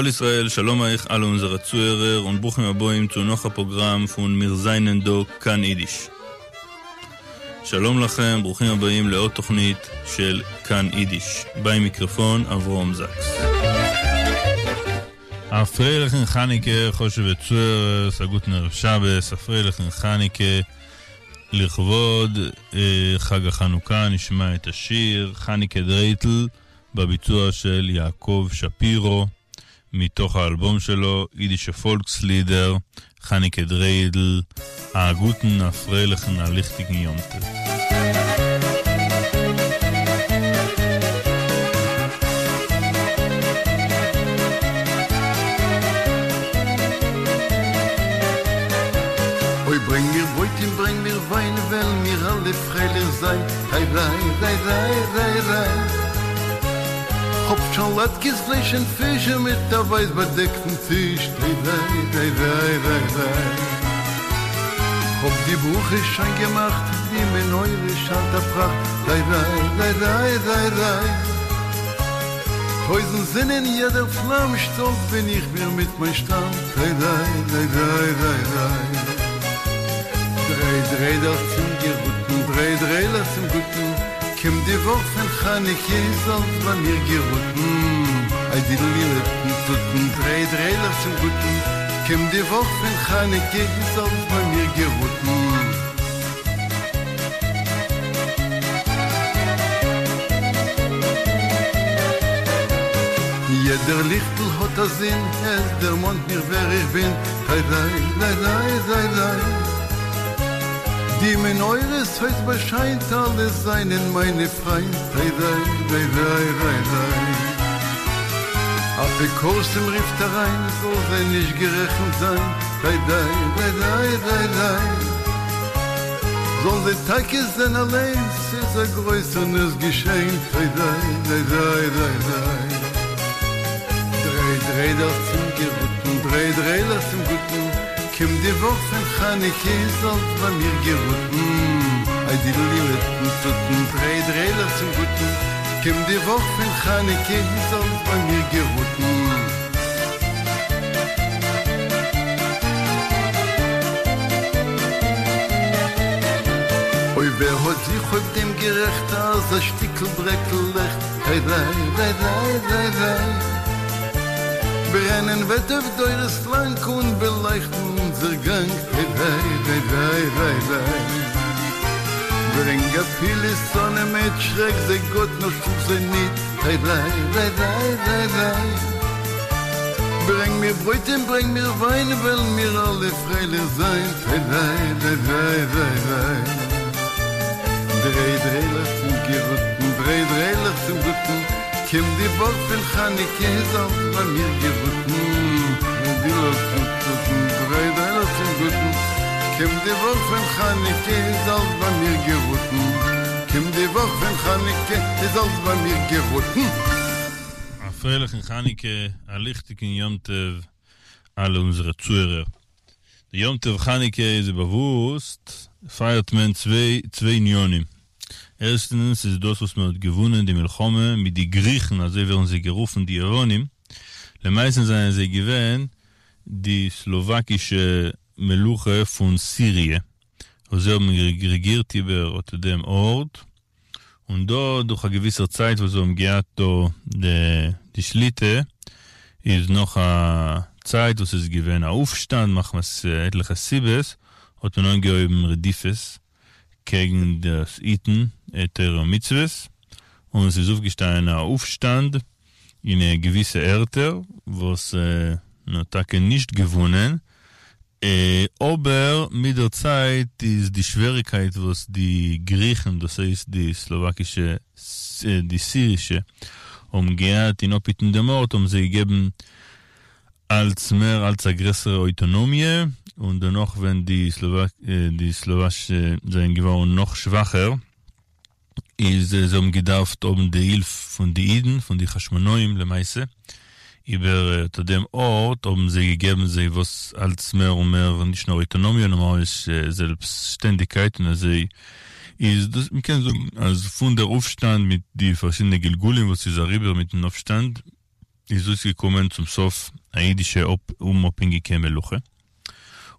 כל ישראל, שלום אייך אלע אונזערע צוהערער און ברוכים הבאים צו נאך א פראגראם פון מיר זיינען דא כאן אידיש. שלום לכם, ברוכים הבאים לעוד תוכנית של כאן אידיש. ביים מיקרופון אברהם זאקס. א פרייליכן חנוכה חשוב'ע צוהערערס, א גוטן ערב שבת, א פרייליכן חנוכה, לכבוד חג החנוכה נשמע את השיר חנוכה דרייטל בביצוע של יעקב שפירא מתוך האלבום שלו אידישע פאלקסלידער, חנוכה דריידל, א גוטן א פרייליכן א ליכטיגן יום טוב. אוי ברענג מיר ברויט און ברענג מיר וויין וועלן מיר אלע פרייליך זיין ריי ריי ריי ריי ריי ריי כ'האב שוין לאטקעס פלייש און פיש און מיט א ווייס באדעקטן טיש ריי ריי ריי ריי ריי ריי כ'האב די ברכה שוין געמאכט די מנורה שיינט א פראכט ריי ריי ריי ריי ריי ריי טויזנט זין אין יעדער פלאם שטאלץ בין איך מיר מיט מיין שטאם ריי ריי ריי ריי ריי ריי דריי דריידלעך צום געראטן דריי דריידלעך צום גוטן קומט די וואך פון חנוכה איז אלץ ביי מיר געראטן איי דידל טוטן דריי דריידלעך צום גוטן קומט די וואך פון חנוכה איז אלץ ביי מיר געראטן. יעדער ליכטל האט א זין, עס דערמאנט מיך ווער איך בין, ריי ריי ריי ריי ריי ריי. די מנורה ס'הויז באשיינט, אלע זענען מיינע פריינט, ריי ריי ריי ריי ריי ריי. אפיקורסים רופט אריין, זאל זיי נישט גערעכנט זיין, ריי ריי ריי ריי ריי ריי. זאלן זיי טאקע זען אליין, ס'איז א גרויסער נס געשען, ריי ריי ריי ריי ריי ריי. דריי דריידלעך צום געראטן, דריי דריידלעך צום גוטן, קומט די וואך פון חנוכה איז אלץ ביי מיר געראטן, איי דידל טוטן, דריי דריידלעך צום גוטן, קומט די וואך פון חנוכה איז אלץ ביי מיר געראטן. אוי ווער האט זיך אויף דעם גערעכט אז א שטיקל ברעקל לעכט ריי ריי ריי ריי ריי ריי ברענען וועט אויף דורות לאנג און באלייכטן אונזער גאנג ריי ריי ריי ריי ריי ריי ברענג אפילו שונאים מיט שרעק זיי גאט נאר שלאג זיי ניט ריי ריי ריי ריי ריי ריי ברענג מיר ברויט און ברענג מיר וויין וועלן מיר אלע פרייליך זיין ריי ריי ריי ריי ריי ריי דריי דריידלעך צום געראטן דריי דריידלעך צום גוטן קומט די וואך פון חנוכה איז אלץ ביי מיר געראטן דריי דריידלעך צום גוטן קומט די וואך פון חנוכה איז אלץ ביי מיר געראטן קומט די וואך פון חנוכה איז אלץ ביי מיר געראטן. א פרייליכן חנוכה, א ליכטיגן יום טוב אלע אונזערע צוהערער. די יום טוב חנוכה איז ווי באוואוסט פייערט מען צוויי צוויי עניינים. ערשטנס איז דאס וואס מען האט געוואונען די מלחמה מיט די גריכן אזוי ווערן זיי גערופן די יוונים, למעשה זענען זיי געווען די סלאוואקישע מלוכה פון סיריע וואס זיי האבן רעגירט איבער אט דעם ארט, און דא דורך א געוויסער צייט וואס זיי האבן געהאט דא די שליטה, איז נאך א צייט וואס איז געווען א אויפשטאנד מחמת עטליכע סיבות, האט מען אנגעהויבן רדיפות קעגן דאס היטן תורה ומצוות, און ס'איז אויפגעשטאנען א אויפשטאנד אין געוויסע ערטער וואס מען האט טאקע נישט געוואונען, אבער מיט דער צייט איז די שוועריקייט וואס די גריכן, דאס הייסט די סלאוואקישע, די סירישע, האבן געהאט אין אפהיטן דעם ארט, האבן זיי געגעבן אלץ מער אלץ א גרעסערע אויטאנאמיע, און דערנאך ווען די סלאוואשע זענען געווארן נאך שוואכער, איז זיי האבן געדארפט האבן די הילף פון די אידן, פון די חשמונאים למעשה, איבער אט דעם ארט האבן זיי געגעבן זיי וואס אלץ מער און מער נישט נאר אויטאנאמיע נאר ממש זעלבסטשטענדיגקייט און אזוי איז דאס מ'קען זאגן אז פון דער אויפשטאנד מיט די פארשידענע גלגולים וואס איז אריבער מיטן אויפשטאנד. איז אויסגעקומען צום סוף א אידישע אומאפהענגיקע מלוכה.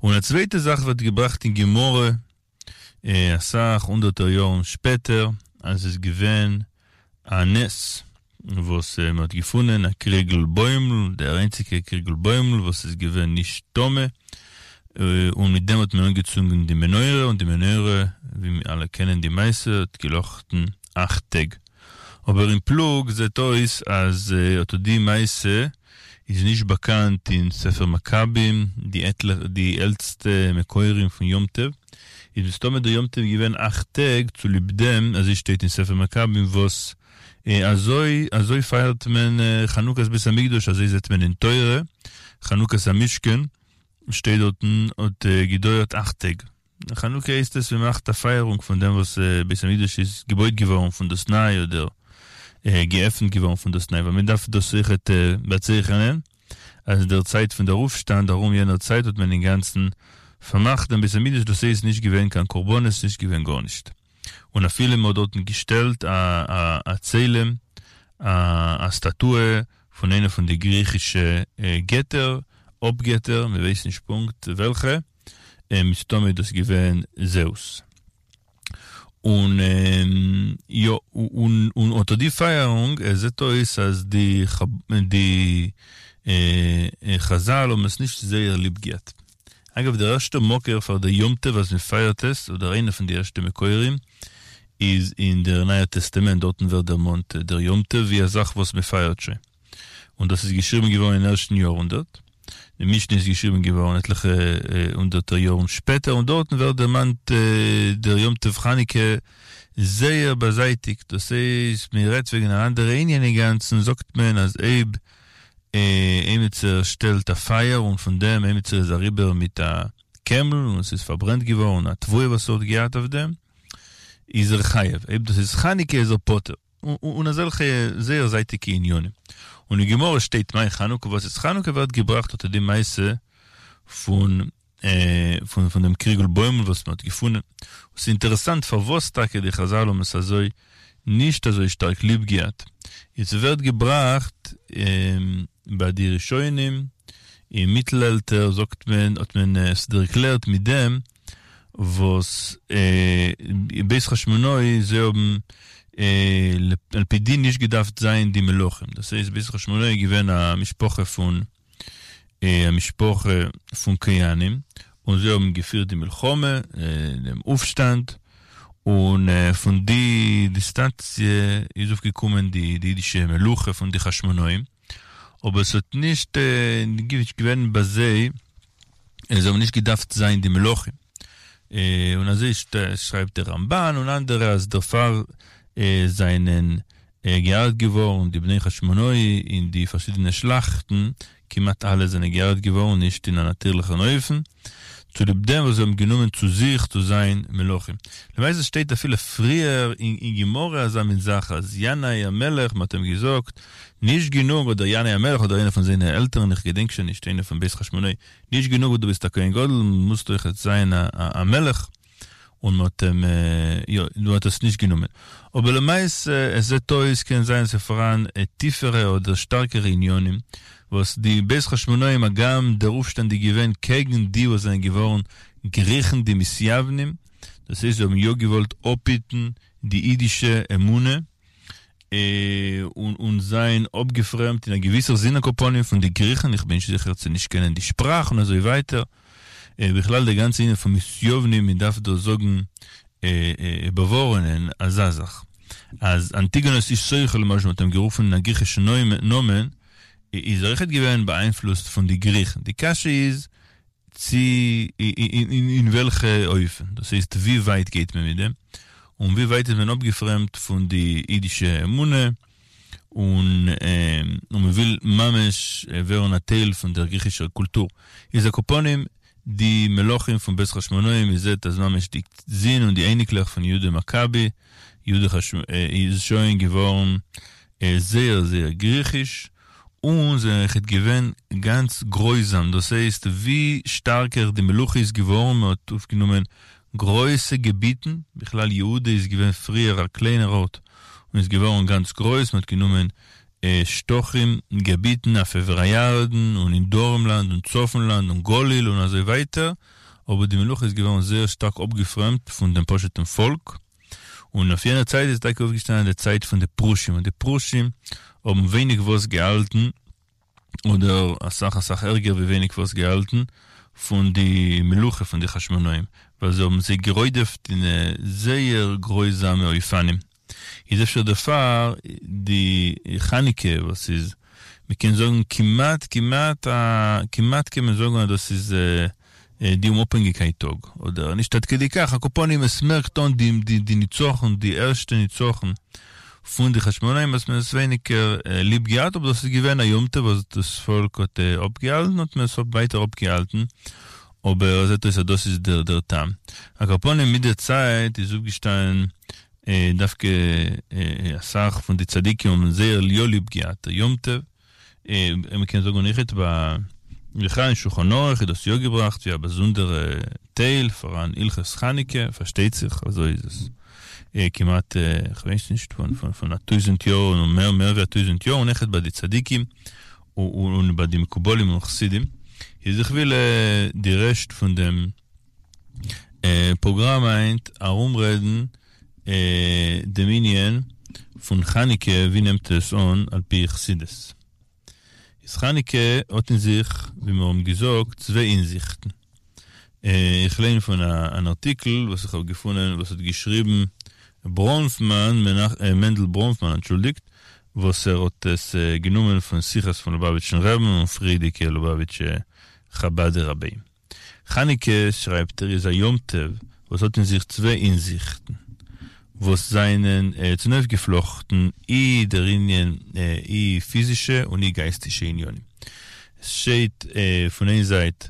און א צווייטע זאך ווערט געבראכט אין גמרא אסאך הונדערטער יארן שפעטער אז עס איז געווען א נס וואס מען האט געפונען א קריגל בוימל, דער איינציגער קריגל בוימל וואס איז געווען נישט טמא, און מיט דעם האט מען אנגעצונדן די מנורה, און די מנורה, ווי מיר אלע קענען די מעשה, האט געלאכטן אכט טעג. אבער אין פלוג זעט אויס אז אטא די מעשה איז נישט באקאנט אין ספר מכבים, די עלטסטע מקורים פון יום טוב, איז מסתמא דער יום טוב געווען אכט טעג צוליב דעם, אזוי שטייט אין ספר מכבים וואס אזוי אזוי פייערט מען חנוכת בית המקדש אזוי זעט מען אין תורה, חנוכת המשכן שטייט דארטן האט געדויערט אכט טעג. חנוכה הייסט עס מען מאכט א פייערונג פון דעם וואס בית המקדש איז געבויט געווארן פון דאס ניי אדער געעפנט געווארן פון דאס ניי ווייל מען דארף דאס אויכעט באצייכענען אז אין דער צייט פון דער אויפשטאנד ארום יענער צייט האט מען אינגאנצן פארמאכט דעם בית המקדש דאס הייסט נישט געווען קיין קרבנות נישט געווען גארנישט און אפילו מען האט דארטן געשטעלט א א צלם א סטאטוע פון איינע פון די גריכישע געטער אפגעטער מען ווייסט נישט פונקט וועלכע. מסתמא איז דאס געווען זעוס. און יא, און אטא די פייערונג, עס זעט אויס אז די די חזל האבן עס נישט זייער ליב געהאט. אגב, דער ערשטער מקור פאר די יום טוב אז מען פייערט עס, אדער איינער פון די ערשטע מקורים, איז אין דער נייער טעסטאמענט, דארטן ווערט דערמאנט דער יום טוב ווי א זאך וואס מען פייערט שוין. און דאס איז געשריבן געווארן אין ערשטן יארהונדערט. די משנה איז געשריבן געווארן עטליכע הונדערטער יארן שפעטער, און דארטן ווערט דערמאנט דער יום טוב חנוכה זייער באזייטיגט, דאס הייסט מען רעדט וועגן אן אנדערע ענין אינגאנצן, זאגט מען אז אויב עימיצער שטעלט א פייער און פון דעם עימיצער איז אריבער מיט א קעמל און עס איז פארברענט געווארן א תבואה וואס ער האט געהאט אויף דעם, איז ער חייב, אויב דאס איז חנוכה איז ער פטור. און אזעלכע זייער זייטיגע עניינים. און אין גמרא שטייט מאי חנוכה וואס איז חנוכה ווערט געבראכט אט די מעשה פון פון פון דעם קריגל בוימל וואס מען האט געפונען. און ס'איז אינטערעסאנט פארוואס טאקע די חזל האבן עס אזוי נישט אזוי שטארק ליב געהאט. און ס'ווערט געבראכט ביי די ראשונים אין מיטלעלטער זאגט מען האט מען עס ערקלערט מיט דעם וואס בית חשמונאי זיי האבן על פי דין נישט געדארפט זיין די מלכים, דאס הייסט בית חשמונאי איז געווען א משפחה פון א משפחה פון כהנים, און זיי האבן געפירט די מלחמה, דעם אויפשטאנד, און פון די דינאסטיע איז אויפגעקומען די אידישע מלוכה פון די חשמונאים, אבער עס האט נישט געווען ביי זיי זיי האבן נישט געדארפט זיין די מלכים, און אזוי שרייבט דער רמבן און אנדערע אז דערפאר זענען געהרג'ט געווארן די בני חשמונאי אין די פארשידענע שלאכטן, כמעט אלע זענען געהרג'ט געווארן נישט אין א נאטירליכן אופן, צוליב דעם וואס זיי האבן גענומען צו זיך צו זיין מלכים. למעשה שטייט אפילו פריער אין גמרא אזא מין זאך אז ינאי המלך, מ'האט אים געזאגט, נישט גענוג אדער ינאי המלך אדער איינער פון זיינע עלטערן איך געדענק שוין נישט איינער פון בית חשמונאי, נישט גענוג וואס דו ביסט א כהן גדול מוזט אויכעט זיין א מלך, און מ'האט אים יא מ'האט עס נישט גענומען. אבער למעשה עס זעט אויס קען זיין ס'איז פאראן טיפערע אדער שטארקערע עניינים וואס די בית חשמונאים הגם דער אויפשטאנד איז געווען קעגן די וואס זענען געווארן גריכן די מתיוונים, דאס הייסט זיי האבן יא געוואלט אפהיטן די אידישע אמונה און זיין אפגעפרעמדט אין א געוויסער זין על כל פנים פון די גריכן, איך בין נישט זיכער צו נישט קענען די שפראך און אזוי ווייטער, בכלל די גאנצע ענין פון מתיוונים מען דארף דא זאגן באווארענען אזא זאך אז אנטיגונוס איש סוכו למשל מ'האט אים גערופן אין א גריכישן נאמען איז ער אויכעט געווען באיינפלוסט פון די גריכן, די קשיא איז צו אין וועלכע אופן, דאס הייסט ווי ווייט גייט מען מיט דעם, און ווי ווייט איז מען אפגעפרעמדט פון די אידישע אמונה, און מען וויל ממש ווערן א טייל פון דער גריכישער קולטור. איז על כל פנים די מלכים פון בית חשמונאים, מען זעט אז ממש די זין און די אייניקלעך פון יהודה מכבי, יהודה איז שוין געווארן זייער זייער גריכיש, און זענען אויכעט געווען גאנץ גרויזאם, דאס הייסט ווי שטארקער די מלוכה איז געווארן, מען האט אויפגענומען גרויסע געביטן, בכלל יהודה איז געווען פריער א קליינער ארט און איז געווארן גאנץ גרויס, מען האט גענומען שטחים, געביטן אויף עבר הירדן און אין דרום לאנד און צפון לאנד און גליל און אזוי ווייטער, אבער די מלוכה איז געווארן זייער שטארק אפגעפרעמדט פון דעם פשוט'ן פאלק, און אויף יענער צייט איז טאקע אויפגעשטאנען די צייט פון די פרושים, און די פרושים האבן ווייניג וואס געהאלטן, אדער אסאך אסאך ערגער ווי ווייניג וואס געהאלטן, פון די מלוכה פון די חשמונאים, ווייל זיי האבן זיי גערודפ'ט אין זייער גרויזאמע אופנים. איז אפשר דערפאר די חנוכה וואס איז מ'קען זאגן כמעט כמעט א כמעט קען מען זאגן אז דאס איז די אומאפהענגיקייט טאג, אדער נישט עד כדי כך, על כל פנים עס מערקט אן די די די ניצחון די ערשטע ניצחון פון די חשמונאים האט מען עס ווייניגער ליב געהאט אבער דאס איז געווען א יום טוב וואס דאס פאלק האט אפגעהאלטן האט מען עס ווייטער אפגעהאלטן אבער זעט אויס אז דאס איז דער דער טעם. על כל פנים מיט דער צייט איז אויפגעשטאנען דווקא אסאך פון די צדיקים האבן זייער יא ליב געהאט דער יום טוב, מען קען זאגן אויכעט ביי בכלל אין שולחן ערוך איז דאס יא געבראכט ווי א באזונדערע טייל פאראן הלכות חנוכה, פארשטייט זיך אזוי איז עס כמעט כ'ווייס נישט פון א טויזענט יאר און מער מער ווי א טויזענט יאר און אויכעט ביי די צדיקים און ביי די מקובלים און חסידים איז איך וויל די רעשט פון דעם פראגראם היינט ארומרעדן דעם ענין פון חנוכה ווי נעמט עס אן על פי חסידות. איז חנוכה האט אין זיך ווי מיר האבן געזאגט צוויי אינזיכטן. איך ליין פון אן ארטיקל וואס איך האב געפונען וואס האט געשריבן בראנפמאן, מענדל בראנפמאן אנטשולדיגט, וואס ער האט עס גענומען פון שיחות פון לובאוויטשן רעבן און פריערדיגע לובאוויטשע חבד'ע רביים. חנוכה, שרייבט ער, איז א יום טוב וואס האט אין זיך צוויי אינזיכטן, וואס זענען צונויפגעפלאכטן אי דער ענין אי פיזישע און אי גייסטישע עניינים. עס שטייט פון איין זייט,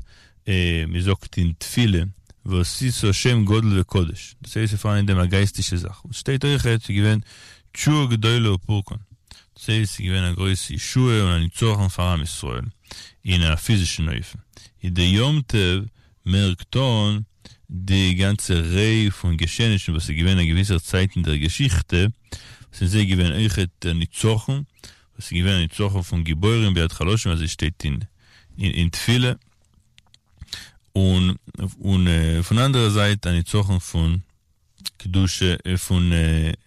מען זאגט אין תפילה ועשית שם גדול וקדוש, דאס הייסט ס'איז פארהאן אין דעם א גייסטישע זאך, און ס'שטייט אויכעט ס'איז געווען תשועה גדולה ופורקן, דאס הייסט ס'איז געווען א גרויסע ישועה און א ניצחון פאר עם ישראל אין א פיזישן אופן, איז די יום טוב מערקט אן די גאנצע ריי פון געשעענישן וואס איז געווען א געוויסער צייט אין דער געשיכטע, וואס אין זיי געווען אויכעט דער ניצחון, וואס איז געווען א ניצחון פון גיבורים ביד חלשים אזוי שטייט אין אין תפילה, און און פון אנדערע זייט א ניצחון פון קדושה פון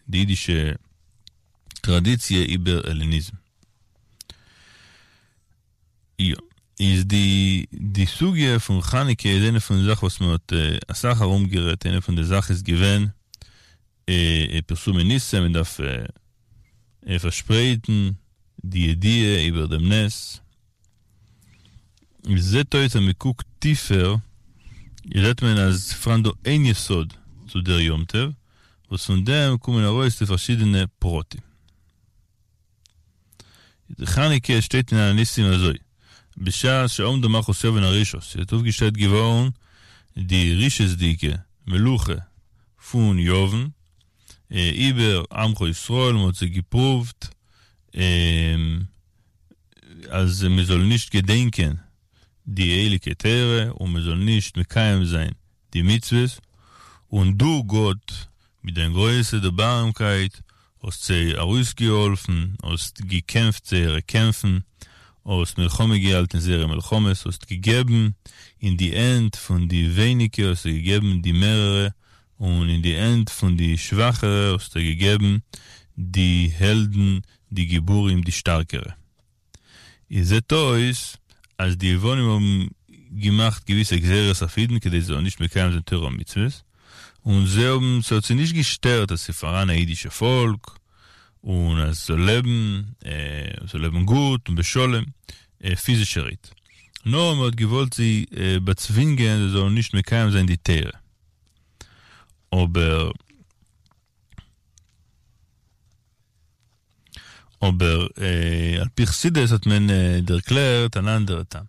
די אידישע טראדיציע איבער העלעניזם. יא. איז די די סוגיא פון חנוכה איז איינע פון די זאכן וואס מען האט אסאך ארום גערעדט, איינע פון די זאך איז געווען פרסומי ניסא, מען דארף פארשפרייטן די ידיעה איבער דעם נס. עס זעט אויס אז מען קוקט טיפער זעט מען אז ס'פאראן דא איין יסוד צו דער יום טוב, וואס פון דעם קומען ארויס די פארשידענע פרטים. די חנוכה שטייט אין על הניסים אזוי, בשעה שעמדה מלכות יוון הרשעה, ס'איז אויפגעשטעלט געווארן די רשעות'דיגע מלוכה פון יוון איבער עמך ישראל, מ'האט זיי געפרואווט אז מ'זאל נישט געדענקען די הייליגע תורה און מ'זאל נישט מקיים זיין די מצוות, און דו גאט מיט דיין גרויסע דערבארעמקייט האסט זיי ארויסגעהאלפן, האסט געקעמפט זייערע קעמפן, האסט מלחמה געהאלטן זייערע מלחמות, האסט געגעבן אין די הענט פון די ווייניגע האסטו געגעבן די מערערע, און אין די הענט פון די שוואכערע האסטו געגעבן די העלדן, די גיבורים, די שטארקערע. איז זעט אויס אז די יוונים האבן געמאכט געוויסע גזירות אויף אידן כדי זיי זאלן נישט מקיים זיין תורה ומצוות, און זיי האבן, ס'האט זיי נישט געשטערט אז ס'איז פאראן א אידישע פאלק, און אז ס'זאל לעבן, זאל לעבן גוט און בשלום, פיזישערהייט. נאר מ'האט געוואלט זיי באצווינגען זיי זאלן נישט מקיים זיין די תורה. אבער. אבער על פי חסידות האט מען ערקלערט אן אנדערע טעם,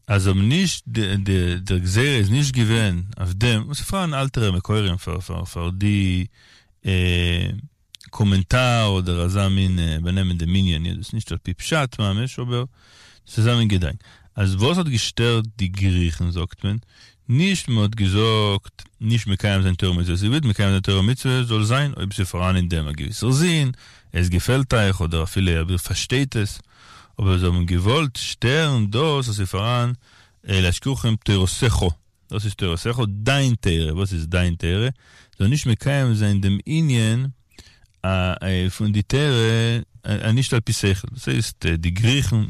אז האבן נישט דער גזירה איז נישט געווען אויף דעם, און ס'פארהאן אלטערע מקורים פאר די קאמענטאר אדער אזא מין באנעמען דעם ענין, דאס איז נישט על פי פשט ממש אבער ס'איז אזא מין געדאנק. אז וואס האט געשטערט די גריכן זאגט מען, נישט מען האט געזאגט נישט מקיים זיין תורה ומצוות, איר ווילט מקיים זיין תורה ומצוות זאל זיין אויב ס'איז פאראן אין דעם א געוויסער זין, עס געפעלט אייך אדער אפילו אויב איר פארשטייט עס, אבער זיי האבן געוואלט שטערן דאס אז ס'איז פאראן להשכיחם תורתך, דאס איז תורתך, דיין תורה, וואס איז דיין תורה? זאל נישט מקיים זיין דעם ענין פון די תורה נישט על פי שכל, דאס הייסט די גריכן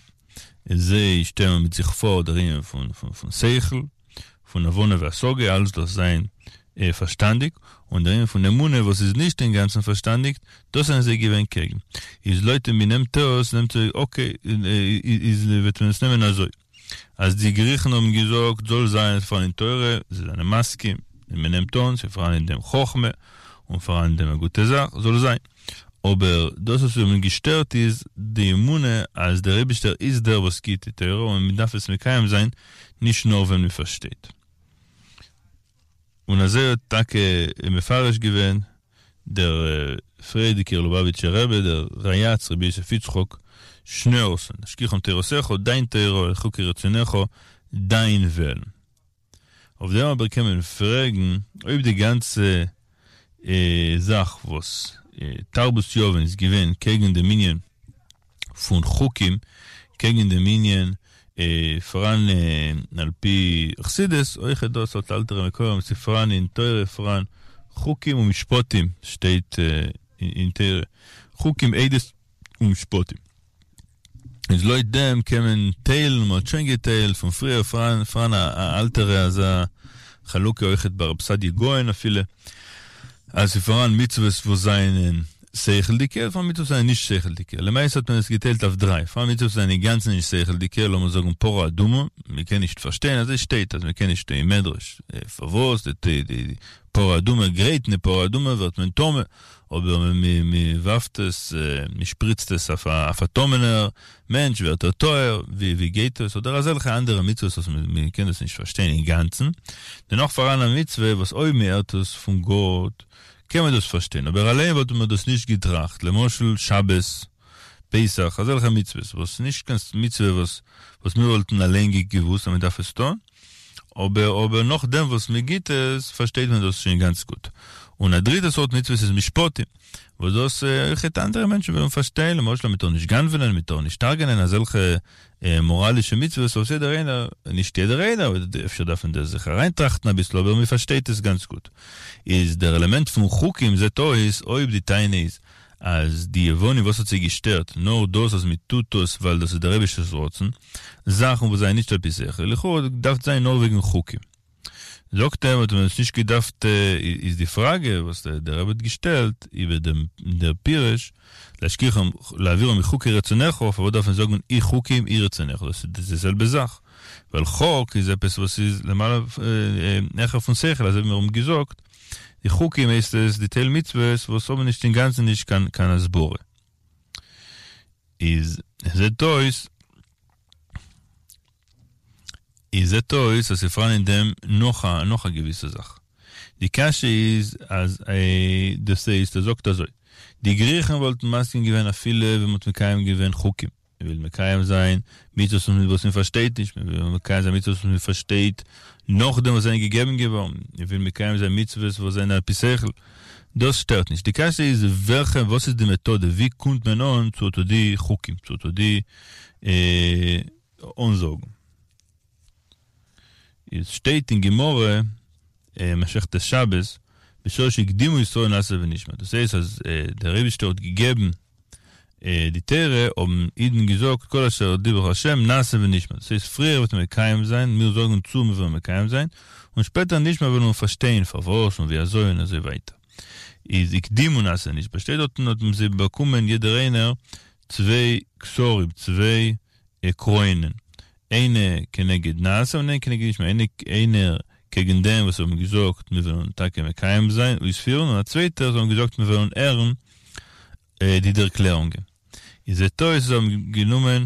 זיי שטעלן מיט זיך פאר דער ענין פון שכל, פון הבנה והשגה, אלעס דארף זיין פארשטאנדיג, און דער ענין פון אמונה וואס איז נישט אינגאנצן פארשטאנדיג, דאס זענען זיי געווען קעגן. איז לויט ווי מ'נעמט עס, נעמט זיי, אקעי, איז וועט מען עס נעמען אזוי. אז די גריכן האבן געזאגט זאל זיין עס פאראן אין תורה, זיי זענען מסכים, און מען נעמט אן, ס'איז פאראן אין דעם חכמה, און פאראן אין דעם א גוטע זאך, זאל זיין. אבער דאס וואס זיי האבן געשטערט איז די אמונה אז דער אייבישטער איז דער וואס גיט די תורה און מען דארף עס מקיים זיין נישט נאר ווען מען פארשטייט. און אזוי האט טאקע מפרש געווען דער פריערדיגער לובאוויטשער רבי דער ריי"צ רבי יוסף יצחק שניאורסאן, להשכיחם תורתך, דיין תורה, חוקי רצונך, דיין וועלן. אויף דעם אבער קען מען פרעגן, אויב די גאנצע זאך וואס תרבות יוון איז געווען קעגן דעם ענין פון חוקים, קעגן דעם ענין פאראן על פי חסידות, אויכעט דאס האט אלטערע מקורות, ס'איז פאראן אין תורה פאראן חוקים ומשפטים, שטייט אין תורה חוקים עדות ומשפטים. איז לויט דעם קען מען טיילן, מ'האט שוין געטיילט פון פריער, פאראן פאראן א אלטערע אזא חלוקה אויכעט ביי רב סעדיה גאון אפילו, אז ס'איז פאראן מצוות וואס זענען שכל'דיגע, פאראן מצוות וואס זענען נישט שכל'דיגע, למעשה האט מען עס געטיילט אויף דריי, פאראן מצוות וואס זענען אינגאנצן נישט שכל'דיגע, לאמיר זאגן פרה אדומה, מ'קען נישט פארשטיין, אזוי שטייט אז מ'קען נישט אין מדרש, פארוואס די די פרה אדומה גרייטן די פרה אדומה ווערט מען טמא, אבער מען ווארפט עס, מען שפריצט עס אויף א טמא'נער מענטש ווערט ער טהור, ווי גייט עס, אדער אזעלכע אנדערע מצוות וואס מען קען דאס נישט פארשטיין אינגאנצן, דערנאך פאראן א מצוה וואס אויב מען הערט עס פון גאט קען מען דאס פארשטיין, אבער אליין וואלט מען דאס נישט געטראכט, למשל שבת, פסח, אזעלכע מצוות וואס נישט קיין מצוה וואס וואס מיר וואלטן אליין געוואוסט אז מען דארף עס טון, אבער אבער נאכדעם וואס מען גיט עס פארשטייט מען דאס שוין גאנץ גוט. און א דריטע סארט מצוות איז משפטים, וואס דאס אויכעט אנדערע מענטשן וועלן פארשטיין, למשל אז מען טאר נישט גנב'נען, מען טאר נישט הרג'נען, אזעלכע מאראלישע מצוות וואס יעדער איינער, נישט יעדער איינער, אפשר דארף מען דא זיך אריינטראכטן אביסל, אבער מען פארשטייט עס גאנץ גוט. איז דער עלעמענט פון חוקים זעט אויס אויב די טענה איז אז די יוונים וואס האט זיי געשטערט נאר דאס אז מען טוט עס ווייל דאס איז דער אייבישטער'ס רצון, זאכן וואס זענען נישט על פי שכל, לכאורה האט געדארפט זיין נאר וועגן חוקים. זאגט ער האט מען עס נישט געדארפט, איז די פראגע וואס דער רבי האט געשטעלט איבער דעם דער פירוש להשכיחם להעבירם מחוקי רצונך, פארוואס דארף מען זאגן אי חוקים אי רצונך, דאס איז די זעלבע זאך, ווייל חוק איז עפעס וואס איז למעלה העכער פון שכל, אזוי ווי מיר האבן געזאגט. די חוקים הייסט עס די טייל מצוות וואס האבן נישט אינגאנצן נישט קיין קיין הסברה. איז זעט אויס איז זעט אויס אז ס'פאראן אין דעם נאך א נאך א געוויסע זאך. די קשיא איז אז דאס הייסט ער זאגט אזוי די גריכן וואלטן מסכים געווען אפילו ווען מ'האט מקיים געווען חוקים. מען וויל מקיים זיין מצוות וואס מען פארשטייט נישט, מען וויל מקיים זיין מצוות וואס מען פארשטייט נאכדעם וואס זענען געגעבן געווארן, מען וויל מקיים זיין מצוות וואס זענען על פי שכל, דאס שטערט נישט. די קשיא איז וועלכע, וואס איז די מעטאדע, ווי קומט מען אן צו אטא די חוקים, צו אטא די אנזאגן. עס שטייט אין גמרא, מסכת שבת, בשעה שהקדימו ישראל נעשה ונשמע, דאס הייסט אז דער אייבישטער האט געגעבן די תורה, האבן אידן געזאגט כל אשר דיבר ה' נעשה ונשמע, דאס הייסט פריער וועט מען מקיים זיין, מיר זאגן צו מיר וועלן מקיים זיין, און שפעטער נשמע וועלן מיר פארשטיין פארוואס און ווי אזוי און אזוי ווייטער. איז הקדימו נעשה ונשמע, שטייט דארטן האט זיי באקומען יעדער איינער צוויי כתרים, צוויי קרוינען, איינע כנגד נעשה און איינע כנגד נשמע, איינער קעגן דעם וואס האבן געזאגט מיר וועלן טאקע מקיים זיין, אויספירן, און א צווייטער וואס האבן געזאגט מיר וועלן הערן די דערקלערונגען. איז זעט אויס זיי האבן גענומען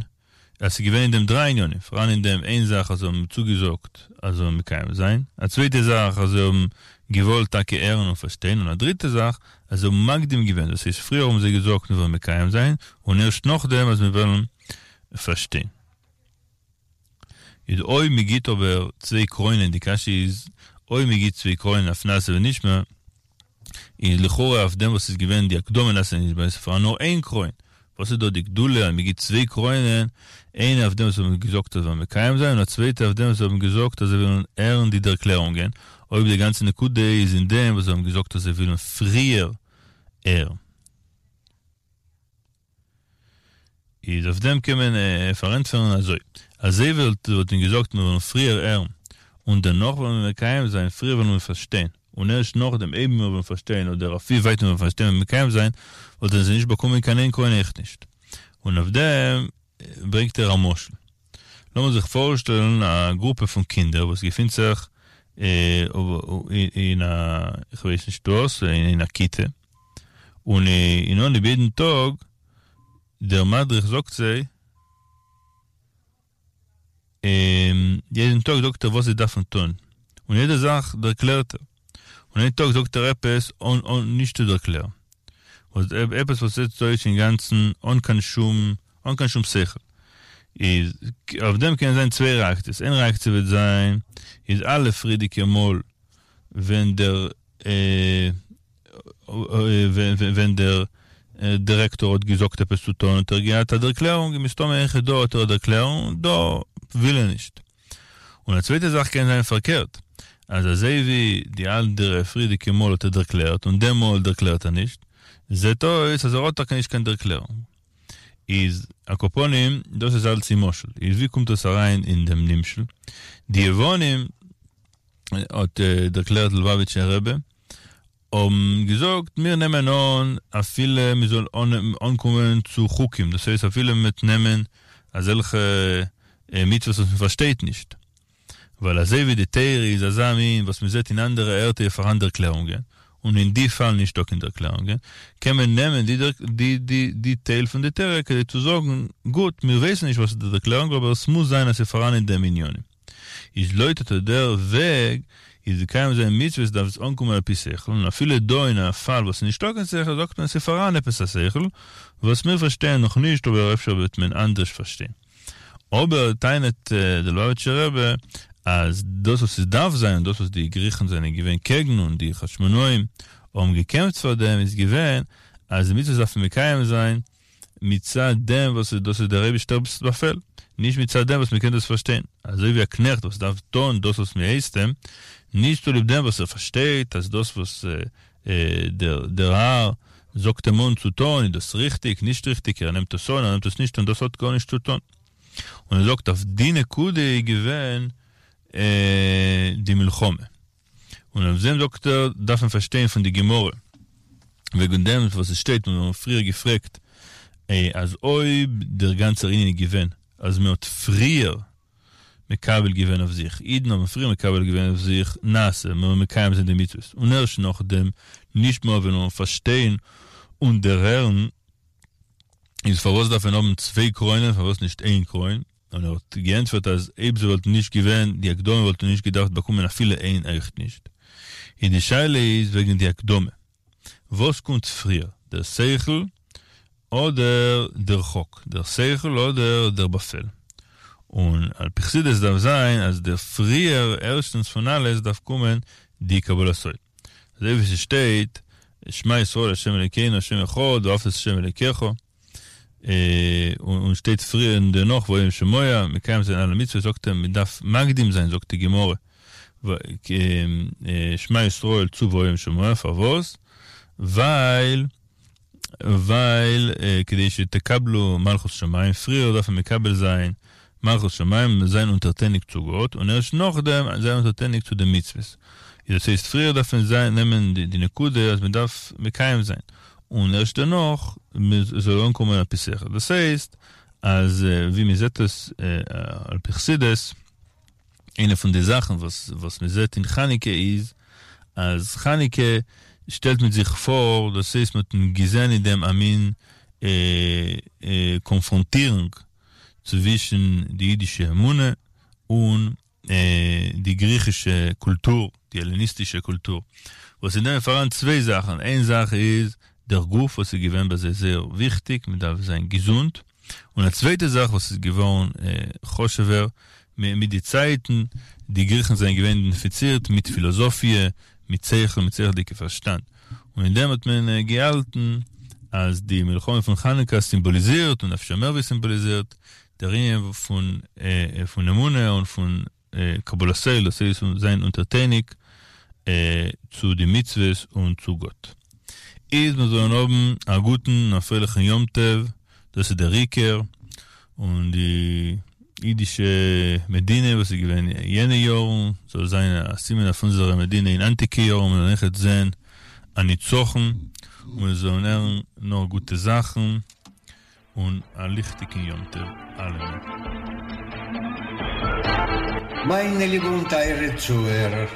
אז ס'איז געווען אין דעם דריי ענינים, פאראן אין דעם איין זאך אז זיי האבן צוגעזאגט אז זיי וועלן מקיים זיין, א צווייטע זאך אז זיי האבן געוואלט טאקע הערן און פארשטיין, און א דריטע זאך אז זיי האבן מקדים געווען, דאס הייסט פריער האבן זיי געזאגט מיר וועלן מקיים זיין, און ערשט נאכדעם אז מיר וועלן פארשטיין. איז אויב מען גיט אבער צוויי קרוינען, די קשיא איז אויב מען גיט צוויי קרוינען אויף נעשה ונשמע, איז לכאורה אויף דעם וואס איז געווען די הקדמה נעשה ונשמע איז פארהאן נאר איין קרוין, וואס איז דא די גדולה אז מען גיט צוויי קרוינען, איינע אויף דעם וואס האבן געזאגט אז זיי וועלן מקיים זיין און א צווייטע אויף דעם וואס האבן געזאגט אז זיי ווילן הערן די ערקלערונגען, אויב די גאנצע נקודה איז אין דעם וואס זיי האבן געזאגט אז זיי ווילן פריער הערן. איז אויף דעם קען מען פארענטפערן אזוי, אז זיי וואלטן געזאגט מיר וועלן פריער הערן און דערנאך וועלן מיר מקיים זיין, פריער וועלן מיר פארשטיין און ערשט נאכדעם אויב מיר וועלן פארשטיין אדער אויף ווי ווייט מיר וועלן פארשטיין וועלן מקיים זיין, וואלטן זיי נישט באקומען קיין איין קרוין אויך נישט. און אויף דעם ברענגט ער א משל. לאמיר זיך פארשטעלן א גרופע פון קינדער וואס געפינט זיך אין א, איך ווייס נישט וואס, אין א כיתה, און אין אנהייב יעדן טאג דער מדריך זאגט זיי, יעדן טאג זאגט ער וואס זיי דארפן טון, און יעדע זאך דערקלערט ער, און איין טאג זאגט ער עפעס אן אן נישט צו דערקלערן, וואס עפעס וואס זעט אויס אינגאנצן אן קיין שום אן קיין שום שכל, איז אויף דעם קען זיין צוויי רעאקציעס, איין רעאקציע וועט זיין איז אלע פריערדיגע מאל ווען דער ווען דער דירעקטאר האט געזאגט עפעס צו טון האט ער געהאט א דערקלערונג און מסתמא אויכעט דא האט ער א דערקלערונג דא וויל ער נישט. און א צווייטע זאך קען זיין פארקערט אז אזוי ווי די אנדערע פריערדיגע מאל האט ער דערקלערט און דעם מאל דערקלערט ער נישט זעט אויס אז ער האט טאקע נישט קיין דערקלערונג. איז על כל פנים דאס איז אלץ אין משל. איז ווי קומט דאס אריין אין דעם נמשל? די יוונים האט דערקלערט ליובאוויטשער רבי, האבן געזאגט מיר נעמען אן אפילו מען זאל אנקומען צו חוקים, דאס הייסט אפילו מען וועט נעמען אזעלכע מצוות וואס מען פארשטייט נישט, ווייל אזוי ווי די תורה איז אזא מין וואס מען זעט אין אנדערע ערטער פארהאן דערקלערונגען, און אין די פאל נישטא קיין דערקלערונגען, קען מען נעמען די די די די טייל פון די תורה כדי צו זאגן, גוט, מיר ווייסן נישט וואס איז די דערקלערונג אבער עס מוז זיין אז ס'איז פארהאן אין דעם ענינים. איז לויט אט דער וועג איז מקיים זיין מצוות דארף עס אנקומען על פי שכל, און אפילו דא אין א פאל וואס איז נישטא קיין שכל זאגט מען ס'איז פאראן עפעס א שכל וואס מיר פארשטייען נאך נישט אבער אפשר וועט מען אנדערש פארשטיין. אבער טענה'ט דער ליובאוויטשער רבי אז דאס וואס עס דארף זיין און דאס וואס די גריכן זענען געווען קעגן און די חשמונאים האבן געקעמפט פאר דעם איז געווען אז די מצוות דארף מען מקיים זיין מצד דעם וואס דאס איז דער אייבישטער'ס באפעל, נישט מצד דעם וואס מ'קען דאס פארשטיין, אזוי ווי א קנעכט וואס דארף טון דאס וואס מ'הייסט אים, נישט צוליב דעם וואס ער פארשטייט אז דאס וואס דער האר זאגט אים אן צו טון איז דאס ריכטיג, נישט ריכטיג, ער נעמט עס אן, ער נעמט עס נישט אן, דאס האט גארנישט צו טון. און ער זאגט אויף די נקודה איז געווען די מלחמה. און אויף דעם זאגט ער דארף מען פארשטיין פון די גמרא וועגן דעם וואס עס שטייט און מיר האבן פריער געפרעגט אז אויב דער גאנצער ענין איז געווען אז מען האט פריער מקבל געווען אויף זיך, אידן האבן פריער מקבל געווען אויף זיך נעשה, מען זאל מקיים זיין די מצוות, און ערשט נאכדעם נשמע ווען מיר פארשטיין און דערהערן, איז פארוואס דארף מען האבן צוויי קרוינען פארוואס נישט איין קרוין? און ער האט געענטפערט אז אויב ס'וואלט נישט געווען די הקדמה וואלט ער נישט געדארפט באקומען אפילו איין אויכט נישט. און די שאלה איז וועגן די הקדמה. וואס קומט פריער, דער שכל אדער דער חוק? דער שכל אדער דער באפעל? און על פי חסידות דארף זיין אז דער פריער ערשטנס פון אלעס דארף קומען די קבלת עול. אזוי ווי ס'שטייט שמע ישראל ה' אלוקינו ה' אחד ואהבת את ה' אלוקיך. און שטייט פריער און דערנאך והיה אם שמוע, מקיים זיין אלע מצוות, זאגט ער מען דארף מקדים זיין, זאגט די גמרא, שמע ישראל צו והיה אם שמוע, פארוואס? ווייל ווייל כדי שתקבלו מלכות שמים, פריער דארף מען מקבל זיין מלכות שמים, זיין אונטערטעניג צו גאט, און ערשט נאכדעם זיין אונטערטעניג צו די מצוות. דאס הייסט פריער דארף מען זיין נעמען די נקודה אז מען דארף מקיים זיין, און ערשט דערנאך זאל אנקומען על פי שכל. דאס הייסט אז ווי מען זעט עס על פי חסידות, איינע פון די זאכן וואס וואס מען זעט אין חנוכה איז, אז חנוכה שטעלט מיט זיך פאר, דאס הייסט מען האט געזען אין דעם א מין קאנפראנטירונג צווישן די אידישע אמונה און די גריכישע קולטור, די העלעניסטישע קולטור, וואס אין דעם איז פאראן צוויי זאכן, איין זאך איז דער גוף וואס איז געווען ביי זיי זייער וויכטיג, מען דארף זיין געזונט, און א צווייטע זאך וואס איז געווארן חשוב'ער, מיט די צייטן, די גריכן זענען געווען אידענטיפיצירט מיט פילאזאפיע, מיט שכל, מיט שכל'דיגע פארשטאנד, און אין דעם האט מען געהאלטן אז די מלחמה פון חנוכה סימבאליזירט, און אפשר מער ווי סימבאליזירט, דער ענין פון פון אמונה און פון קבלת עול, דאס הייסט זיין אונטערטעניג צו די מצוות און צו גאט. איז מיר זאלן האבן א גוטן און א פרייליכן יום טוב, דאס איז דער עיקר, און די אידישע מדינה וואס איז געווען יענע יארן זאל זיין א סימן אויף אונזערע מדינה אין היינטיגע יארן, מיר זאלן אויכעט זען א ניצחון, און מיר זאלן הערן נאר גוטע זאכן, און א ליכטיגן יום טוב אלעמען. מיינע ליבע און טייערע צוהערער,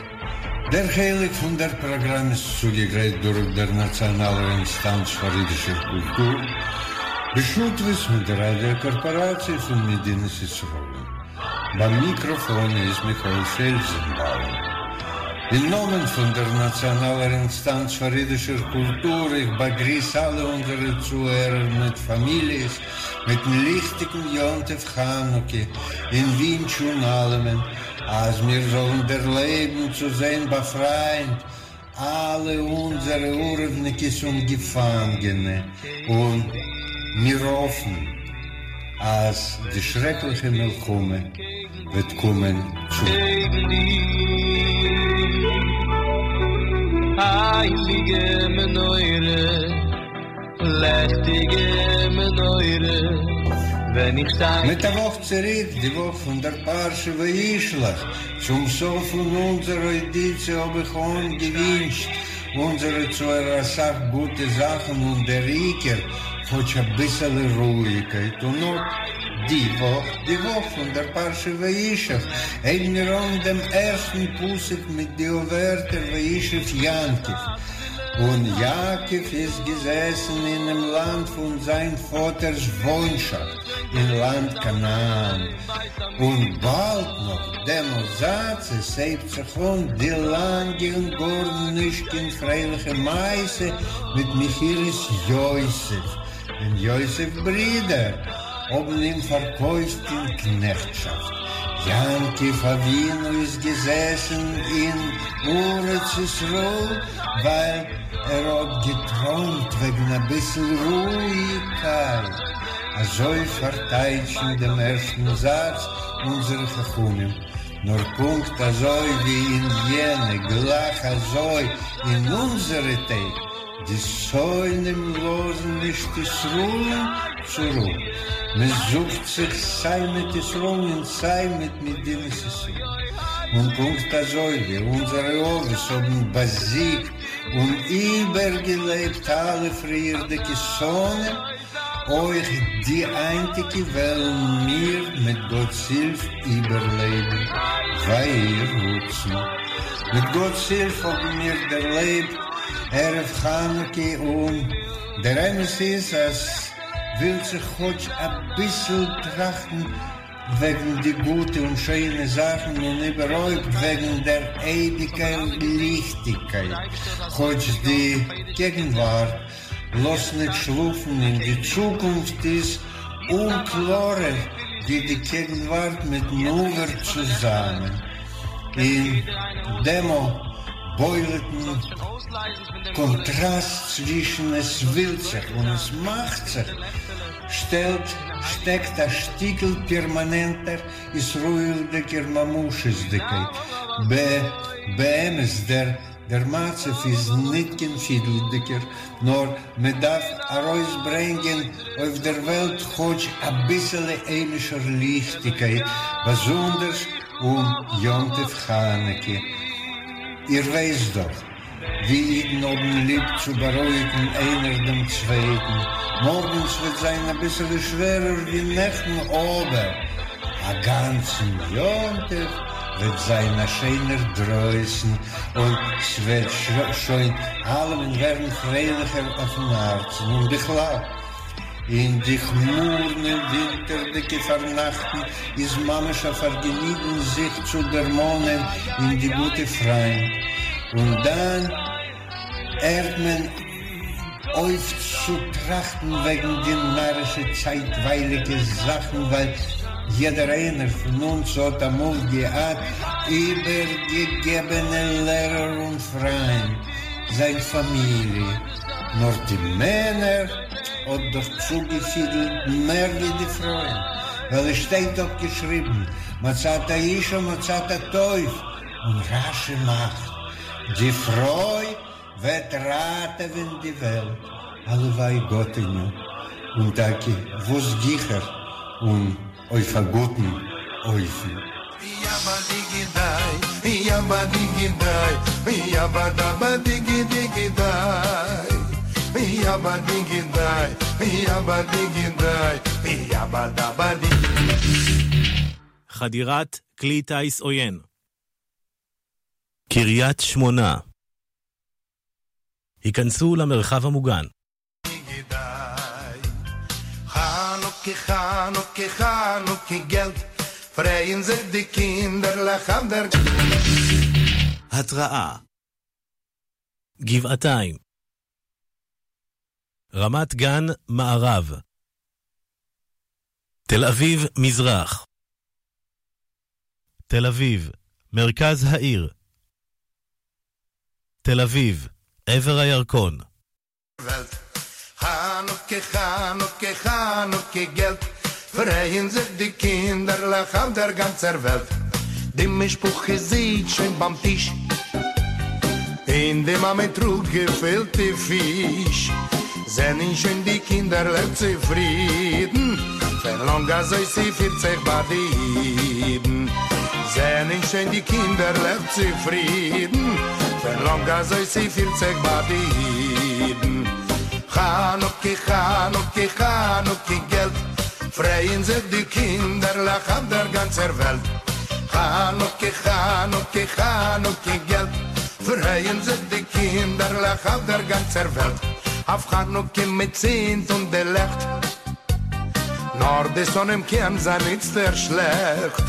דער חלק פון דער פראגראם איז צוגעגרייט דורך דער נאציאנאלער אינסטאנץ פאר אידישער קולטור, בשותפות מיט דער ראדיא קארפאראציע פון מדינת ישראל. ביים מיקראפאן איז מיכאל פעלזנבאום. אין נאמען פון דער נאציאנאלער אינסטאנץ פאר אידישער קולטור, איך באגריס אלע אונזערע צוהערער מיט פאמיליעס מיטן ליכטיגן יום טוב חנוכה, און ווינטש אן אלעמען אז מיר זאלן דערלעבן צו זען באפרייט אלע אונזערע ערבניקעס און געפאנגענע, און מיר האפן אז די שרעקליכע מלחמה וועט קומען צו. הייליגע מנורה, לעכטיגע מנורה, ווען איך שטיי. מיט א וואך צוריק, די וואך פון דער פרשה וישלח, צום סוף פון אונזער אוידיציע האב איך אנגעווינטשט אונזערע צוהערער אסאך גוטע זאכן און דער עיקר כאטש אביסעלע רואיגקייט און אט די וואך, די וואך פון דער פרשה וישב, הייבן מיר אן דעם ערשטן פסוק מיט די ווערטער וישב יעקב, און יעקב איז געזעסן אינעם לאנד פון זיין פאטער'ס וואוינשאפט, אין לאנד כנען, און באלד נאך דעם זאץ עס הייבט זיך אן די לאנגע און גאר נישט קיין פרייליכע מעשה מיט מכירת יוסף, ווען יוסף'ס ברידער האבן אים פארקויפט אין קנעכטשאפט. יעקב אבינו איז געזעסן אין ארץ ישראל ווייל ער האט געטרוימט וועגן אביסל רואיגקייט, אזוי פארטייטשן דעם ערשטן זאץ אונזערע חכמים, נאר פונקט אזוי ווי אין יענע גלייך אזוי אין אונזערע טעג, די שונאים לאזן נישט ישראל'ן צו רו, מען זוכט זיך סיי מיט ישראל'ן און סיי מיט מדינת ישראל, און פונקט אזוי ווי אונזערע אבות האבן באזיגט און איבערגעלעבט אלע פריערדיגע שונאים, אויך די היינטיגע וועלן מיר מיט גאט'ס הילף איבערלעבן, ויהי רצון. מיט גאט'ס הילף האבן מיר דערלעבט ערב חנוכה און דער אמת איז אז ווילט זיך כאטש אביסל טראכטן וועגן די גוטע און שיינע זאכן און איבערהויפט וועגן דער אייביגער ליכטיגקייט, כאטש די געגנווארט לאזט ניט שלאפן און די צוקונפט איז אומקלארער ווי די געגנווארט מיטן עבר צוזאמען. אין דעם בולטן קאנטראסט צווישן עס ווילט זיך און עס מאכט זיך שטעלט שטעקט א שטיקל פערמאנענטער ישראלדיקער ממשות'דיקייט. באמת דער דער מצב איז ניט קיין פידלדיקער, נאר מען דארף ארויסברענגען אויף דער וועלט כאטש אביסעלע היימישער ליכטיגקייט, באזונדערס אום יום טוב חנוכה. איר ווייסט דאך ווי אידן האבן ליב צו בארואיגן איינער דעם צווייטן, מארגן ס'וועט זיין אביסעלע שווערער ווי נעכטן, אבער א גאנצן יום טוב וועט זיין א שיינער דרויסן און ס'וועט שוין אלעמען ווערן פרייליכער אויפן הארצן, און בכלל אין די כמורנע ווינטערדיגע פארנאכטן איז ממש א פארגעניגן זיך צו דערמאנען אין די גוטע פריינט, און דאן הערט מען אויף צו טראכטן וועגן די נארישע צייטווייליגע זאכן ווייל. יעדער איינער פון אונז האט אמאל געהאט איבערגעגעבענע לערער און פריינט, זיין פאמיליע, נאר די מענער האט דאך צוגעפידלט מער ווי די פרויען, ווייל עס שטייט דאך געשריבן מצאת אשה מצאת טוב, און רשי מאכט די פרוי וועט ראטעווען די וועלט, הלוואי גאטעניו, און טאקע וואס גיכער און אויף א גוטן אופן. חדירת כלי טיס עוין. קריית שמונה. היכנסו למרחב המוגן. התראה. גבעתיים. רמת גן מערב. תל אביב מזרח. תל אביב, מרכז העיר. תל אביב, עבר הירקון. וועלט. חנוכה חנוכה חנוכה געלט, פרייען זיך די קינדערלעך אויף דער גאנצער וועלט. די משפחה זיצט שוין ביים טיש, און די מאמע טראגט געפילטע פיש. זענען שוין די קינדערלעך צופרידן, ווי לאנג אזוי ס'פירט זיך ביי די אידן. זענען שוין די קינדערלעך צופרידן, ווי לאנג אזוי ס'פירט זיך ביי די אידן. חנוכה חנוכה חנוכה געלט, פרייען זיך די קינדערלעך אויף דער גאנצער וועלט. חנוכה חנוכה חנוכה געלט, פרייען זיך די קינדערלעך אויף דער גאנצער וועלט. אויף חנוכה מ'צינדט אן די לעכט, נאר די שונאים קען זיין איצטער שלעכט,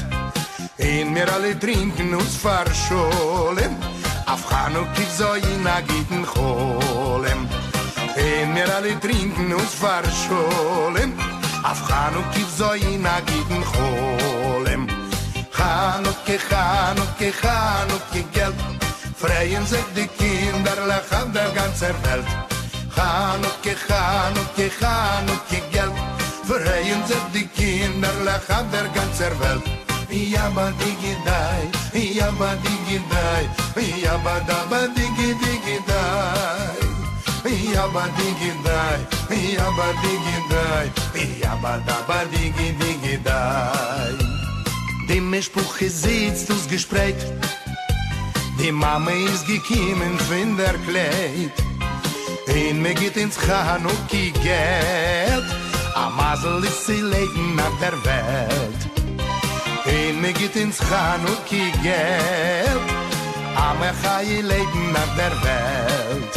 און מיר אלע טרינקען אויס פאר שלום, אויף חנוכה זאל זיין א גוטן חלום. און מיר אלע טרינקען אויס פאר שלום, אויף חנוכה זאל זיין א גוטן חלום. חנוכה חנוכה חנוכה געלט, פרייען זיך די קינדערלעך אויף דער גאנצער וועלט. חנוכה חנוכה חנוכה געלט, פרייען זיך די קינדערלעך אויף דער גאנצער וועלט. יאבא דיגי דיי, יאבא דיגי דיי, יאבא דאבא דיגי דיגי דיי. יאבא דיגי דיי, יאבא דיגי דיי, יאבא דאבא דיגי דיגי דיי. די משפחה זיצט אויסגעשפרייט, די מאמע איז געקומען פון דער קלייט, און מ'גיט אונז חנוכה געלט, א מזל איז צו לעבן אויף דער וועלט. און מ'גיט אונז חנוכה געלט, א מחיה לעבן אויף דער וועלט.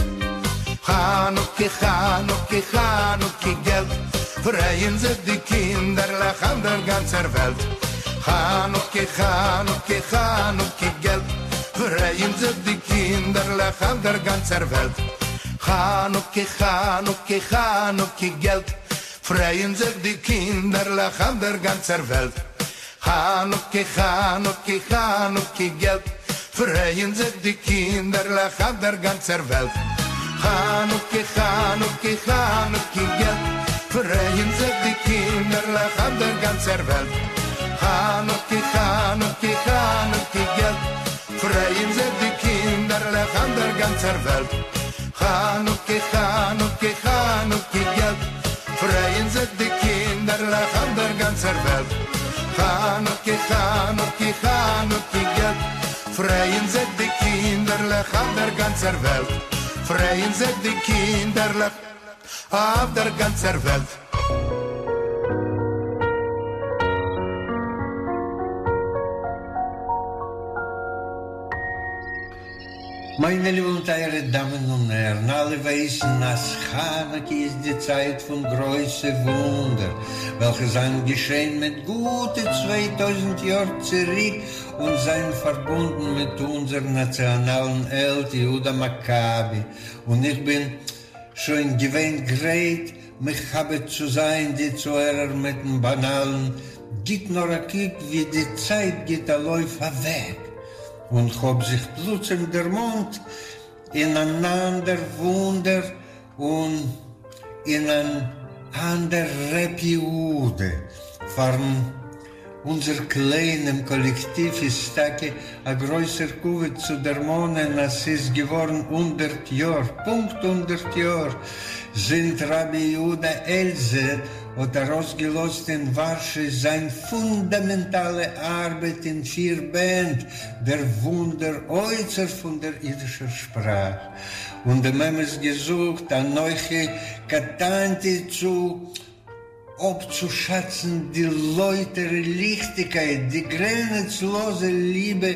חנוכה חנוכה חנוכה געלט, פרייען זיך די קינדערלעך אויף דער גאנצער וועלט. חנוכה חנוכה חנוכה געלט, פרייען זיך די קינדערלעך אויף דער גאנצער וועלט. חנוכה חנוכה חנוכה געלט, פרייען זיך די קינדערלעך אויף דער גאנצער וועלט. חנוכה חנוכה חנוכה געלט, פרייען זיך די קינדערלעך אויף דער גאנצער וועלט. חנוכה חנוכה חנוכה געלט, פרייען זיך די קינדערלעך אויף דער גאנצער וועלט. חנוכה חנוכה חנוכה געלט, פרייען זיך די קינדערלעך אויף דער גאנצער וועלט. חנוכה חנוכה חנוכה געלט, פרייען זיך די קינדערלעך אויף דער גאנצער וועלט. חנוכה חנוכה חנוכה געלט, פרייען זיך די קינדערלעך אויף דער גאנצער וועלט. פרייען זיך די קינדערלעך אויף דער גאנצער וועלט. מיינע ליבע און טייערע דאמען און הערן, אלע ווייסן אז חנוכה איז די צייט פון גרויסע וואונדער וועלכע זיינען געשען מיט גוטע 2000 יאר צוריק און זיינען פארבונדן מיט אונזער נאציאנאלן העלד יהודה מכבי, און איך בין שוין געווען גרייט מכבד צו זיין די צוהערער מיטן באנאלן. גיט נאר א קוק ווי די צייט גיט א לויף אוועק, און כ'האב זיך פלוצים דערמאנט אין אן אנדער וואונדער און אין אן אנדער ר' יהודה פארן אונזער קליינעם קאלעקטיוו איז טאקע א גרויסער כבוד צו דערמאנען אז ס'איז געווארן הונדערט יאר, פונקט הונדערט יאר, זינט רבי יהודה העלזער האט ארויסגעלאזט אין ווארשע זיין פונדאמענטאלע ארבעט אין פיר בענד דער וואונדער אוצר פון דער אידישער שפראך, און דעם אמת געזאגט אנכי קטנתי צו אפצושאצן די לויטערע ליכטיגקייט, די גרענעצלאזע ליבע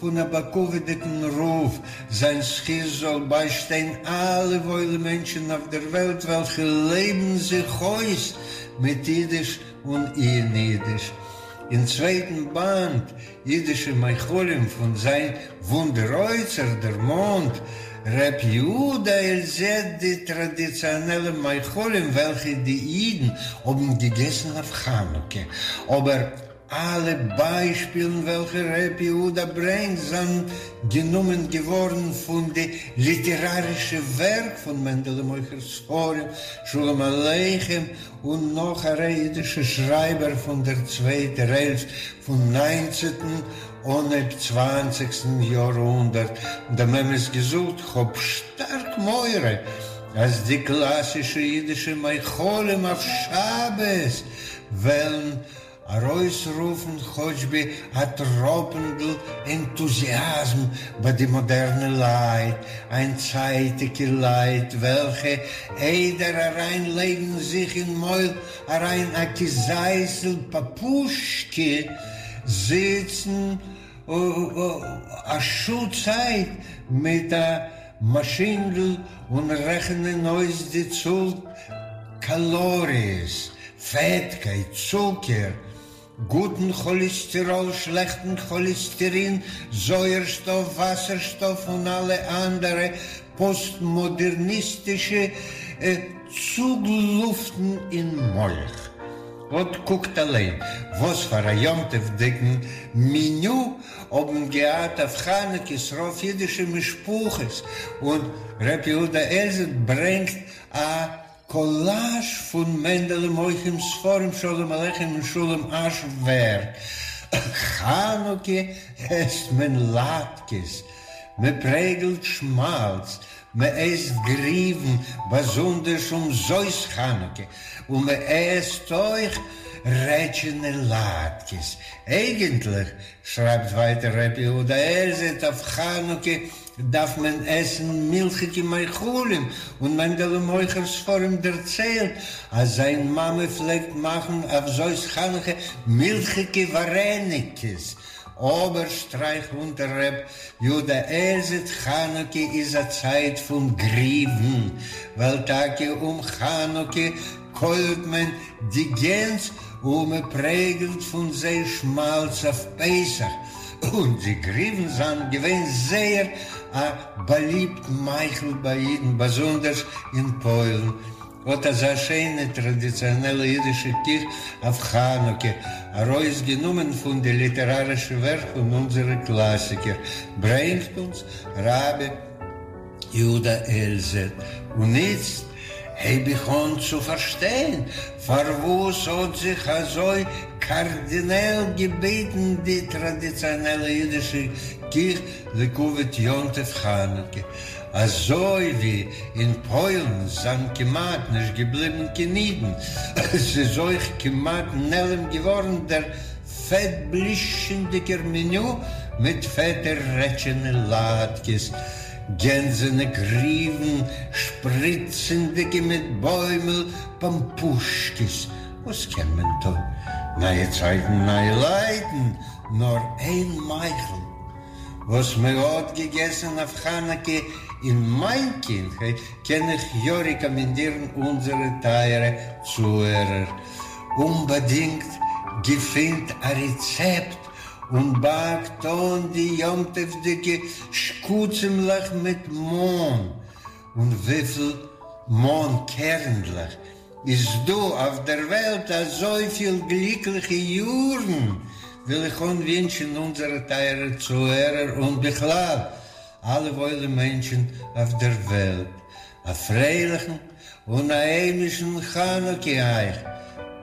פון א בכבוד'יגן רב, זיין זכות זאל ביישטיין אלע וואוילע מענטשן אויף דער וועלט וועלכע לעבן זיך אויס מיט אידיש און אין אידיש. אין צווייטן באנד אידישע מאכלים פון זיין וואונדער אוצר דערמאנט ר' יהודה עלזעט די טראדיציאנעלע מאכלים וועלכע די אידן האבן געגעסן אויף חנוכה, אבער אלע ביישפילן וועלכע ר' יהודה ברענגט זענען גענומען געווארן פון די ליטערארישע ווערק פון מענדעלע מוכר ספרים, שלום עליכם און נאך א ריי אידישע שרייבער פון דער צווייטער העלפט פון ניינצעטן אנהייב צוואנציגסטן יארהונדערט, דעם אמת געזאגט, כ'האב שטארק מורא אז די קלאסישע אידישע מאכלים אויף שבת וועלן ארויסרופן כאטשבי א טראפנדל ענטוזיאזם ביי די מאדערנע לייט, היינטצייטיגע לייט וועלכע איידער אריין לייגן זיך אין מויל אריין א כזית'ל פאפושקע זיצן א שעה צייט מיט א מאשינדל און רעכענען אויס די צאל קאלאריעס, פעטקייט, צוקער, גוטן כאליסטעראל, שלעכטן כאליסטערין, זויערשטאף, וואסערשטאף און אלע אנדערע פאסטמאדערניסטישע צוגלופטן אין מח. אט קוקט אליין וואס פאר א יום טוב'דיגן מעניו האבן געהאט אויף חנוכה ס'רוב אידישע משפחות, און ר' יהודה עלזעט ברענגט א קאלאזש פון מענדעלע מוכר ספרים שלום עליכם און שלום אש ווערק. חנוכה עסט מען לאטקעס, מען פרעגלט שמאלץ, מען עסט גריוון, באזונדערש אום זאת חנוכה, און מען עסט אויך רעטשענע לאטקעס. אייגענטליך, שרייבט ווייטער ר' יהודה עלזעט, אויף חנוכה דארף מען עסן מילכיגע מאכלים, און מענדעלע מוכר ספרים דערציילט אז זיין מאמע פלעגט מאכן אויף זאת חנוכה מילכיגע ווארעניקעס, אבער שטרייכט אונטער ר' יהודה עלזעט חנוכה איז א צייט פון גריוון, ווייל טאקע אום חנוכה קוילט מען די גענז און מען פרעגלט פון זיי שמאלץ אויף פסח, און די גריוון זיינען געווען זייער א באליבט מאכל ביי אידן באזונדערס אין פוילן. אט אזא שיינע טראדיציאנעלע אידישע קיך אויף חנוכה, ארויסגענומען פון די ליטערארישע ווערק פון אונזערע קלאסיקער, ברענגט אונז רבי יהודה עלזעט. און איצט הייב איך אן צו פארשטיין פארוואס האט זיך אזוי קארדינעל געביטן די טראדיציאנעלע אידישע קיך לכבוד יום טוב חנוכה. אזוי ווי אין פוילן זענען כמעט נישט געבליבן קיין אידן, ס'איז אויך כמעט נעלם געווארן דער פעט-בלישטשענדיגער מעניו מיט פעטע רעטשענע לאטקעס, גענזענע גריוון, שפריצענדיגע מיט בוימל פאמפושקעס. וואס קען מען טון? נייע צייטן נייע לייטן, נאר איין מאכל. וואס מען האט געגעסן אויף חנוכה אין מיין קינדהייט קען איך יא רעקאמענדירן אונזערע טייערע צוהערער אומבאדינגט געפינט א רעצעפט און באקט אן די יום טוב'דיגע שקצים'לעך מיט מאן און וויפיל מאן קערנדלעך. איז דא אויף דער וועלט אזויפיל גליקליכע יארן, וויל איך אנווינטשן אונזערע טייערע צוהערער און בכלל אלע וואוילע מענטשן אויף דער וועלט, א פרייליכן און א היימישן חנוכה אייך,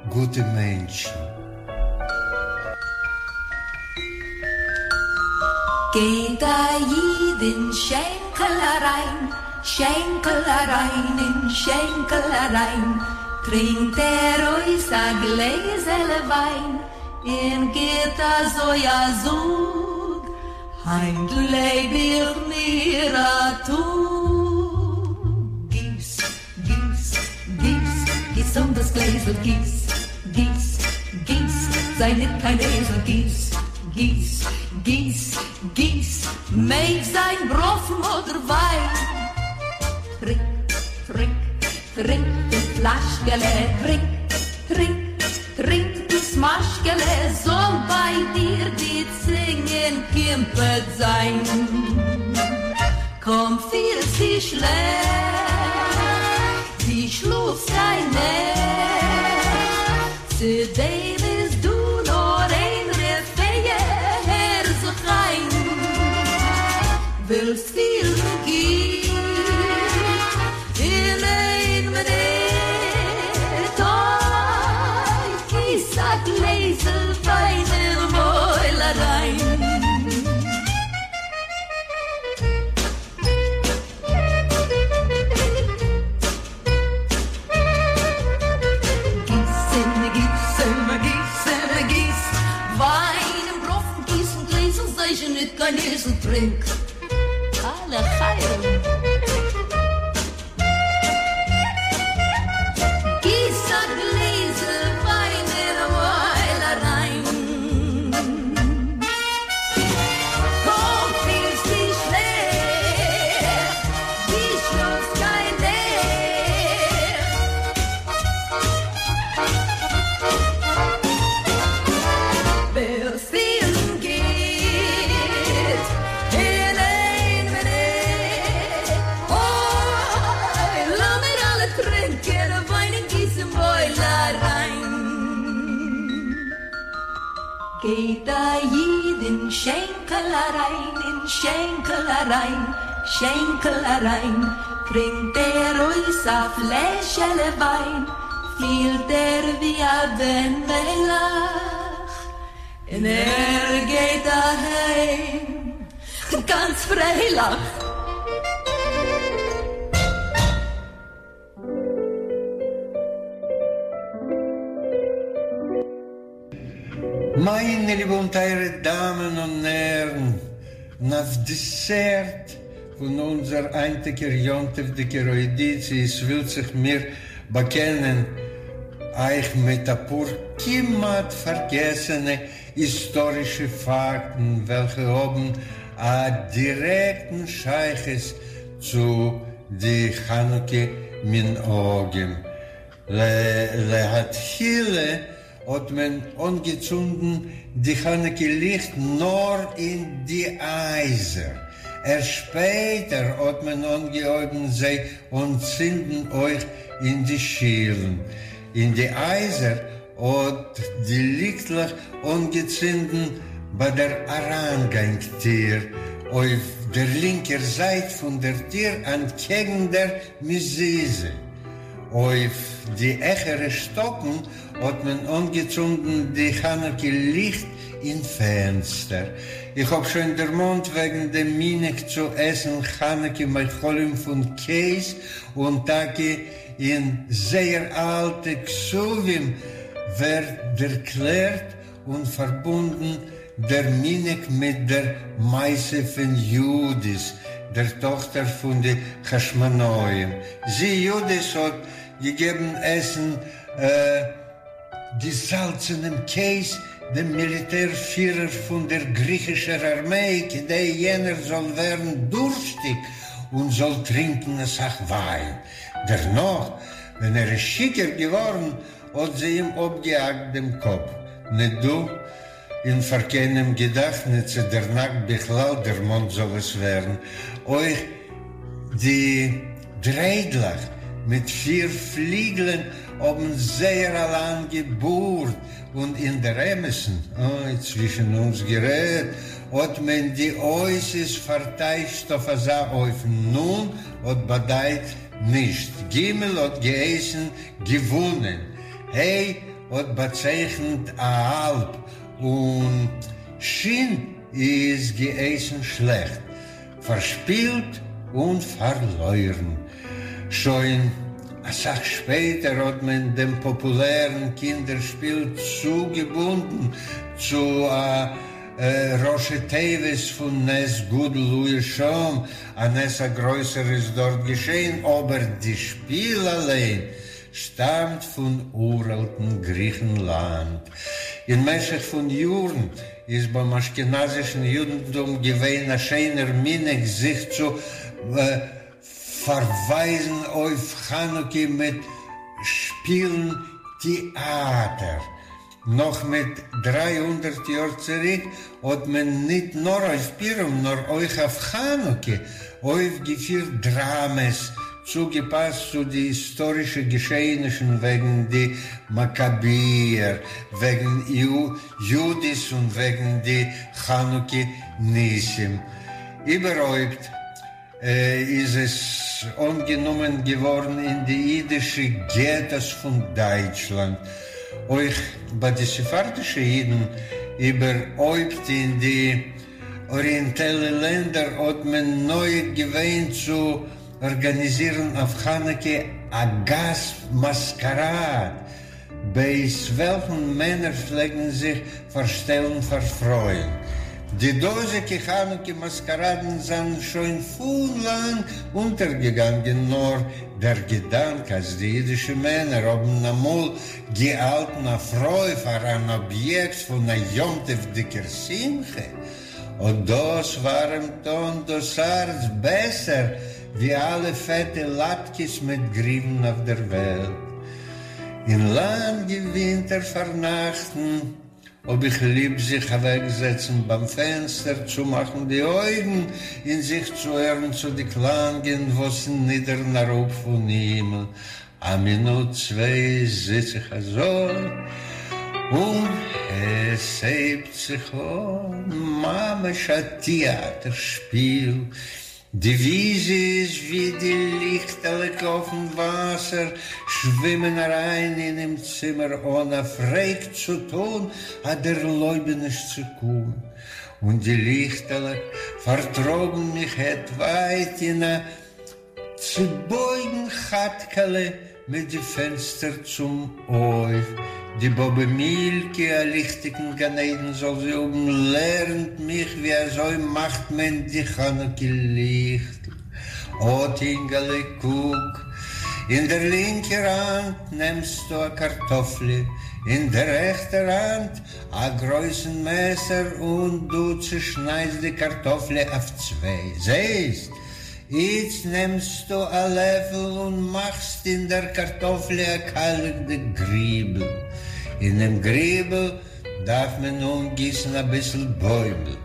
גוטע מענטשן. גייט א איד אין שענקל אריין, שענקל אריין אין שענקל אריין, טרינקט ער אויס א גלעזעלע וויין, און גיט אזוי א זאג, היינט לעב איך מיר א טאג. גיס, גיס, גיס, גיס אן דאס גלעזל, גיס, גיס, גיס, זיי ניט קיין אייזל, גיס, גיס, גיס, גיס, מעג זיין בראנפן אדער וויין. טרינק, טרינק, טרינק דאס פלאשקעלע, טרינק, טרינק, טרינק דאס משקעלע, זאל ביי דיר די צונג אין קימפעט זיין. קוים פילסטו שלעכט, דו שלאפסט קיין נעכט, צו דעם איז דא נאר איין רפואה, הער זיך איין, ווילסט פילן גוט אין איין מינוט, אוי, גיס א גלעזל וויין אין מויל אריין. גיס און גיס און גיס און גיס וויין און בראנפן גיס אין גלעזל זיי זשע ניט קיין אייזל טרינק א לחיים. גיס א גלעזל וויין אין מויל אריין. קוים פילסטו שלעכט, דו שלאפסט קיין נעכט. ווילסט פילן גוט אין איין מינוט, אוי, לאמיר אלע טרינקען וויין און גיס אין מויל אריין. גייט א איד אין שענקל אריין, אין שענקל אריין, שענקל אריין, טרינקט ער אויס א פלעשעלע וויין, פילט ער ווי א בן מלך, און ער גייט אהיים גאנץ פרייליך. מיינע ליבע און טייערע דאמען און הערן, און אויף דעסערט פון אונזער היינטיגער יום טוב'דיגער אוידיציע עס ווילט זיך מיר באקענען אייך מיט אפאר כמעט פארגעסענע היסטארישע פאקטן וועלכע האבן א דירעקטן שייכות צו די חנוכה מנהגים. להתחילה האט מען אנגעצונדן די חנוכה ליכט נאר אין די הייזער, ערשט שפעטער האט מען אנגעהויבן זיי אנצינדן אויך אין די שילן. אין די הייזער האט די ליכטלעך אנגעצינדן ביי דער אריינגאנג טיר אויף דער לינקער זייט פון דער טיר אנטקעגן דער מזוזה. אויף די העכערע שטאקן האט מען אנגעצונדן די חנוכה ליכט אין פענסטער. איך האב שוין דערמאנט וועגן דעם מנהג צו עסן חנוכה מאכלים פון קעז, און טאקע אין זייער אלטע כתבים ווערט דערקלערט און פארבונדן דער מנהג מיט דער מעשה פון יהודית, דער טאכטער פון די חשמונאים. זי, יהודית, האט געגעבן עסן געזאלצענעם קעז דעם מיליטער פירער פון דער גריכישער ארמיי, כדי יענער זאל ווערן דורשטיג און זאל טרינקען אסאך וויין. דערנאך, ווען ער איז שיכור געווארן, האט זי אים אפגעהאקט דעם קאפ. ניט דא און פאר קיינעם געדאכט ניט צו דער נאכט בכלל דערמאנט זאל עס ווערן. אויך די דריידלעך מיט פיר פליגלען. האבן זייער א לאנגע בארד, און אין דער אמת'ן, אוי, צווישן אונז גערעדט, האט מען די אותיות פארטייטשט אויף אזא אופן, נ' האט באדייט נישט, ג' האט געהייסן געוואונען, ה' האט באצייכנט א האלב, און ש' איז געהייסן שלעכט, פארשפילט און פארלוירן. שוין אסאך שפעטער האט מען דעם פאפולערן קינדער שפיל צוגעבונדן צו א ראשי תיבות פון נס גדול היה שם, א נס א גרויסער איז דארט געשען, אבער די שפיל אליין שטאמט פון אוראלטן גריכנלאנד. אין משך פון יארן איז ביים אשכנזישן יודנטום געווען א שיינער מנהג זיך צו פארווייזן אויף חנוכה מיט שפילן טעאטער. נאך מיט 300 יאר צוריק האט מען ניט נאר אויף פורים נאר אויך אויף חנוכה אויפגעפירט דראמעס צוגעפאסט צו די היסטארישע געשעענישן וועגן די מאקאביער, וועגן יהודית און וועגן די חנוכה ניסים. איבערהויפט איז עס אנגענומען געווארן אין די אידישע געטאס פון דייטשלאנד, אויך ביי די ספרדישע אידן, איבערהויפט אין די אריענטעלע לענדער האט מען נוהג געווען צו ארגאניזירן אויף חנוכה א גאס מאסקאראד, בעת וועלכן מענער פלעגן זיך פארשטעלן פאר פרויען. די דאזיגע חנוכה מאסקאראדן זענען שוין פון לאנג אונטערגעגאנגען, נאר דער געדאנק אז די אידישע מענער האבן אמאל געהאלטן א פרוי פאר אן אביעקט פון א יום-טוב'דיגער שמחה, אט דאס ווארעמט אן דאס הארץ בעסער ווי אלע פעטע לאטקעס מיט גריוון אויף דער וועלט. אין לאנגע ווינטער פארנאכטן האב איך ליב זיך אוועקזעצן ביים פענסטער, צומאכן די אויגן און זיך צוהערן צו די קלאנגען וואס נידערן אראפ פון הימל. א מינוט צוויי זיץ איך אזוי און עס הייבט זיך אן ממש א טעאטער שפיל. די וויזיעס ווי די ליכטעלעך אויפן וואסער שווימען אריין אינעם צימער אן א פרעג צו טאן א דערלויבעניש צו קומען, און די ליכטעלעך פארטראגן מיך העט ווייט אין א צעבויגן כאטקעלע מיט די פענסטער צום הויף. די באבע מילקע, א ליכטיגן גן עדן זאל זי האבן, לערנט מיך ווי אזוי מאכט מען די חנוכה ליכטל. אט אינגעלע קוק, אין דער לינקער האנט נעמסטו א קארטאפליע, אין דער רעכטער האנט א גרויסן מעסער און דו צעשניידסט די קארטאפליע אויף צוויי. זעסט? איצט נעמסטו א לעפל און מאכסט אין דער קארטאפליע א קיילעכדיג גריבל. אינעם גריבל דארף מען אנגיסן אביסל בוימל.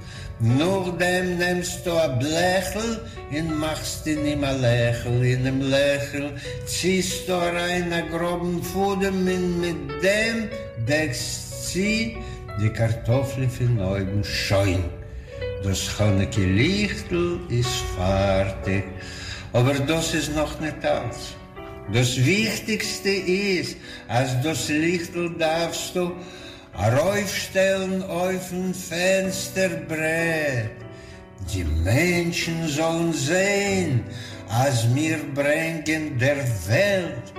נאכדעם נעמסטו א בלעכל און מאכסט אין אים א לעכל. אינעם לעכל ציסטו אריין א גראבן פאדעם און מיט דעם דעקסט צו די קארטאפליע פון אויבן. שוין! דאס חנוכה ליכטל איז פארטיג, אבער דאס איז נאך ניט אלץ. דאס וויכטיגסטע איז אז דאס ליכטל דארפסטו ארויפשטעלן אויפן פענסטער ברעט, די מענטשן זאלן זען אז מיר ברענגען דער וועלט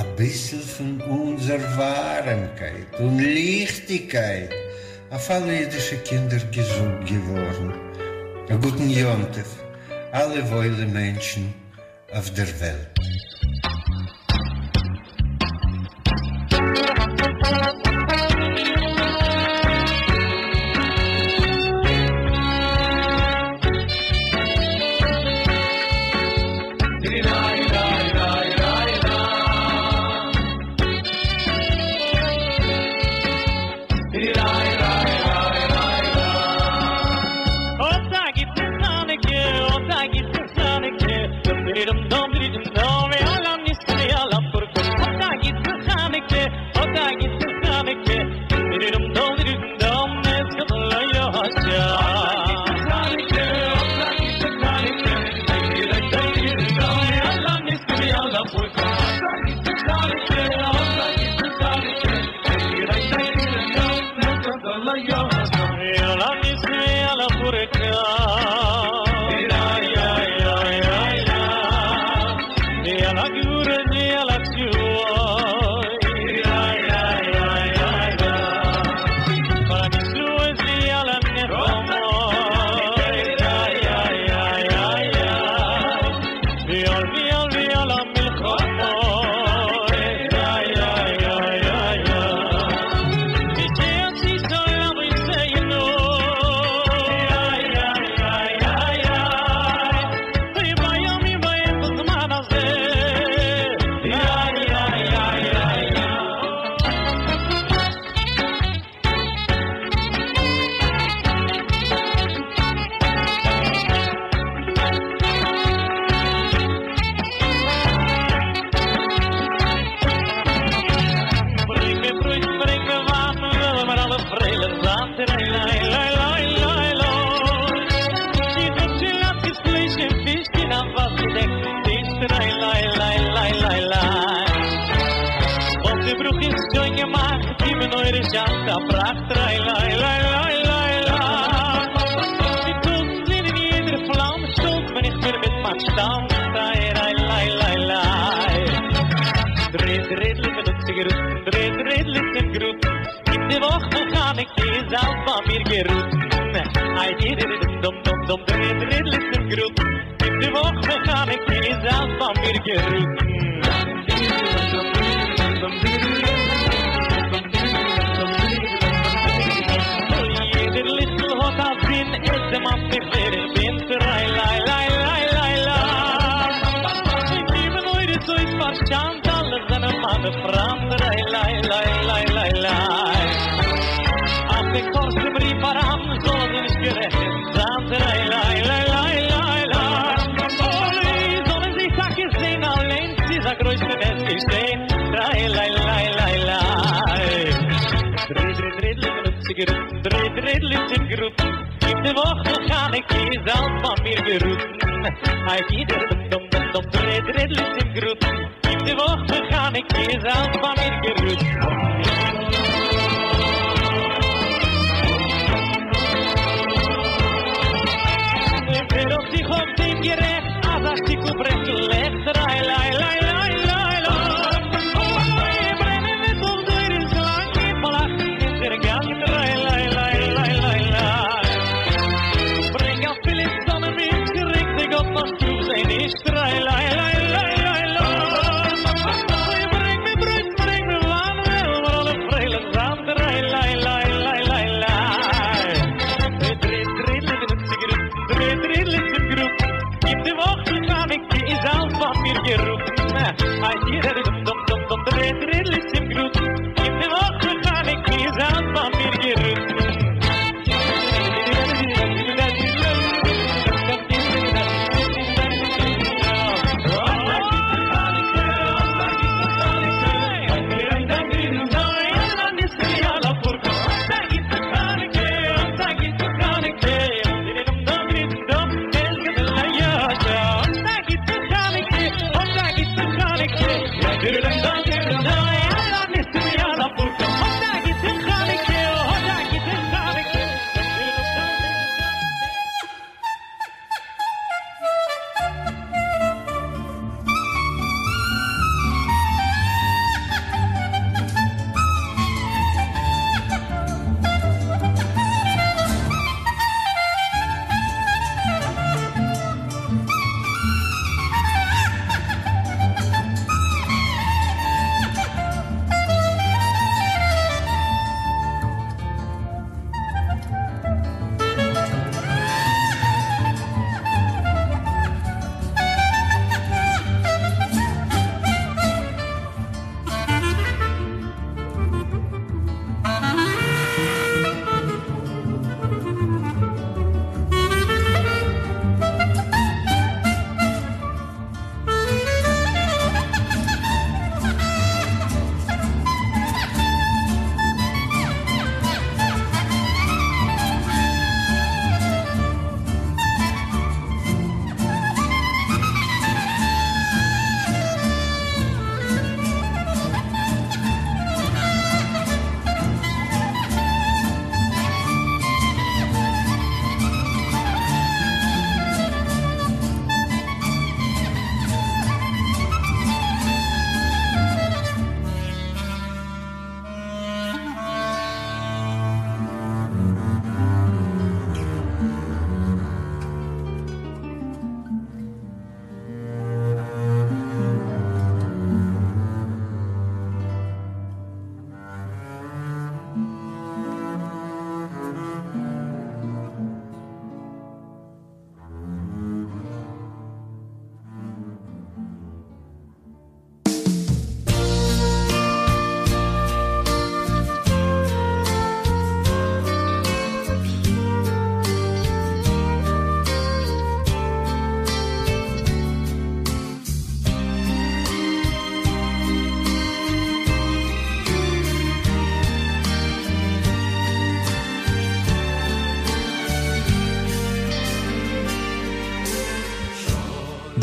אביסל פון אונזער ווארעמקייט און ליכטיגקייט. אויף אלע אידישע קינדער געזונט געווארן, א גוטן יום טוב אלע וואוילע מענטשן אויף דער וועלט.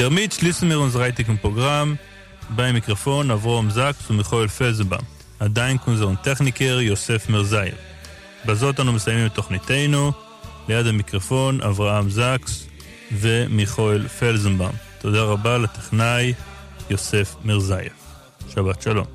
דערמיט שליסן מיר אונזער היינטיגן פראגראם. ביים מיקראפאן אברהם זאקס און מיכאל פעלזנבאום. א דאנק אונזערן טעכניקער יוסף מירזאיעוו. בזאת אנו מסיימים את תוכניתנו. ליד המיקרופון אברהם זקס ומיכאל פלזנבאום. תודה רבה לטכנאי יוסף מירזאיעוו. שבת שלום.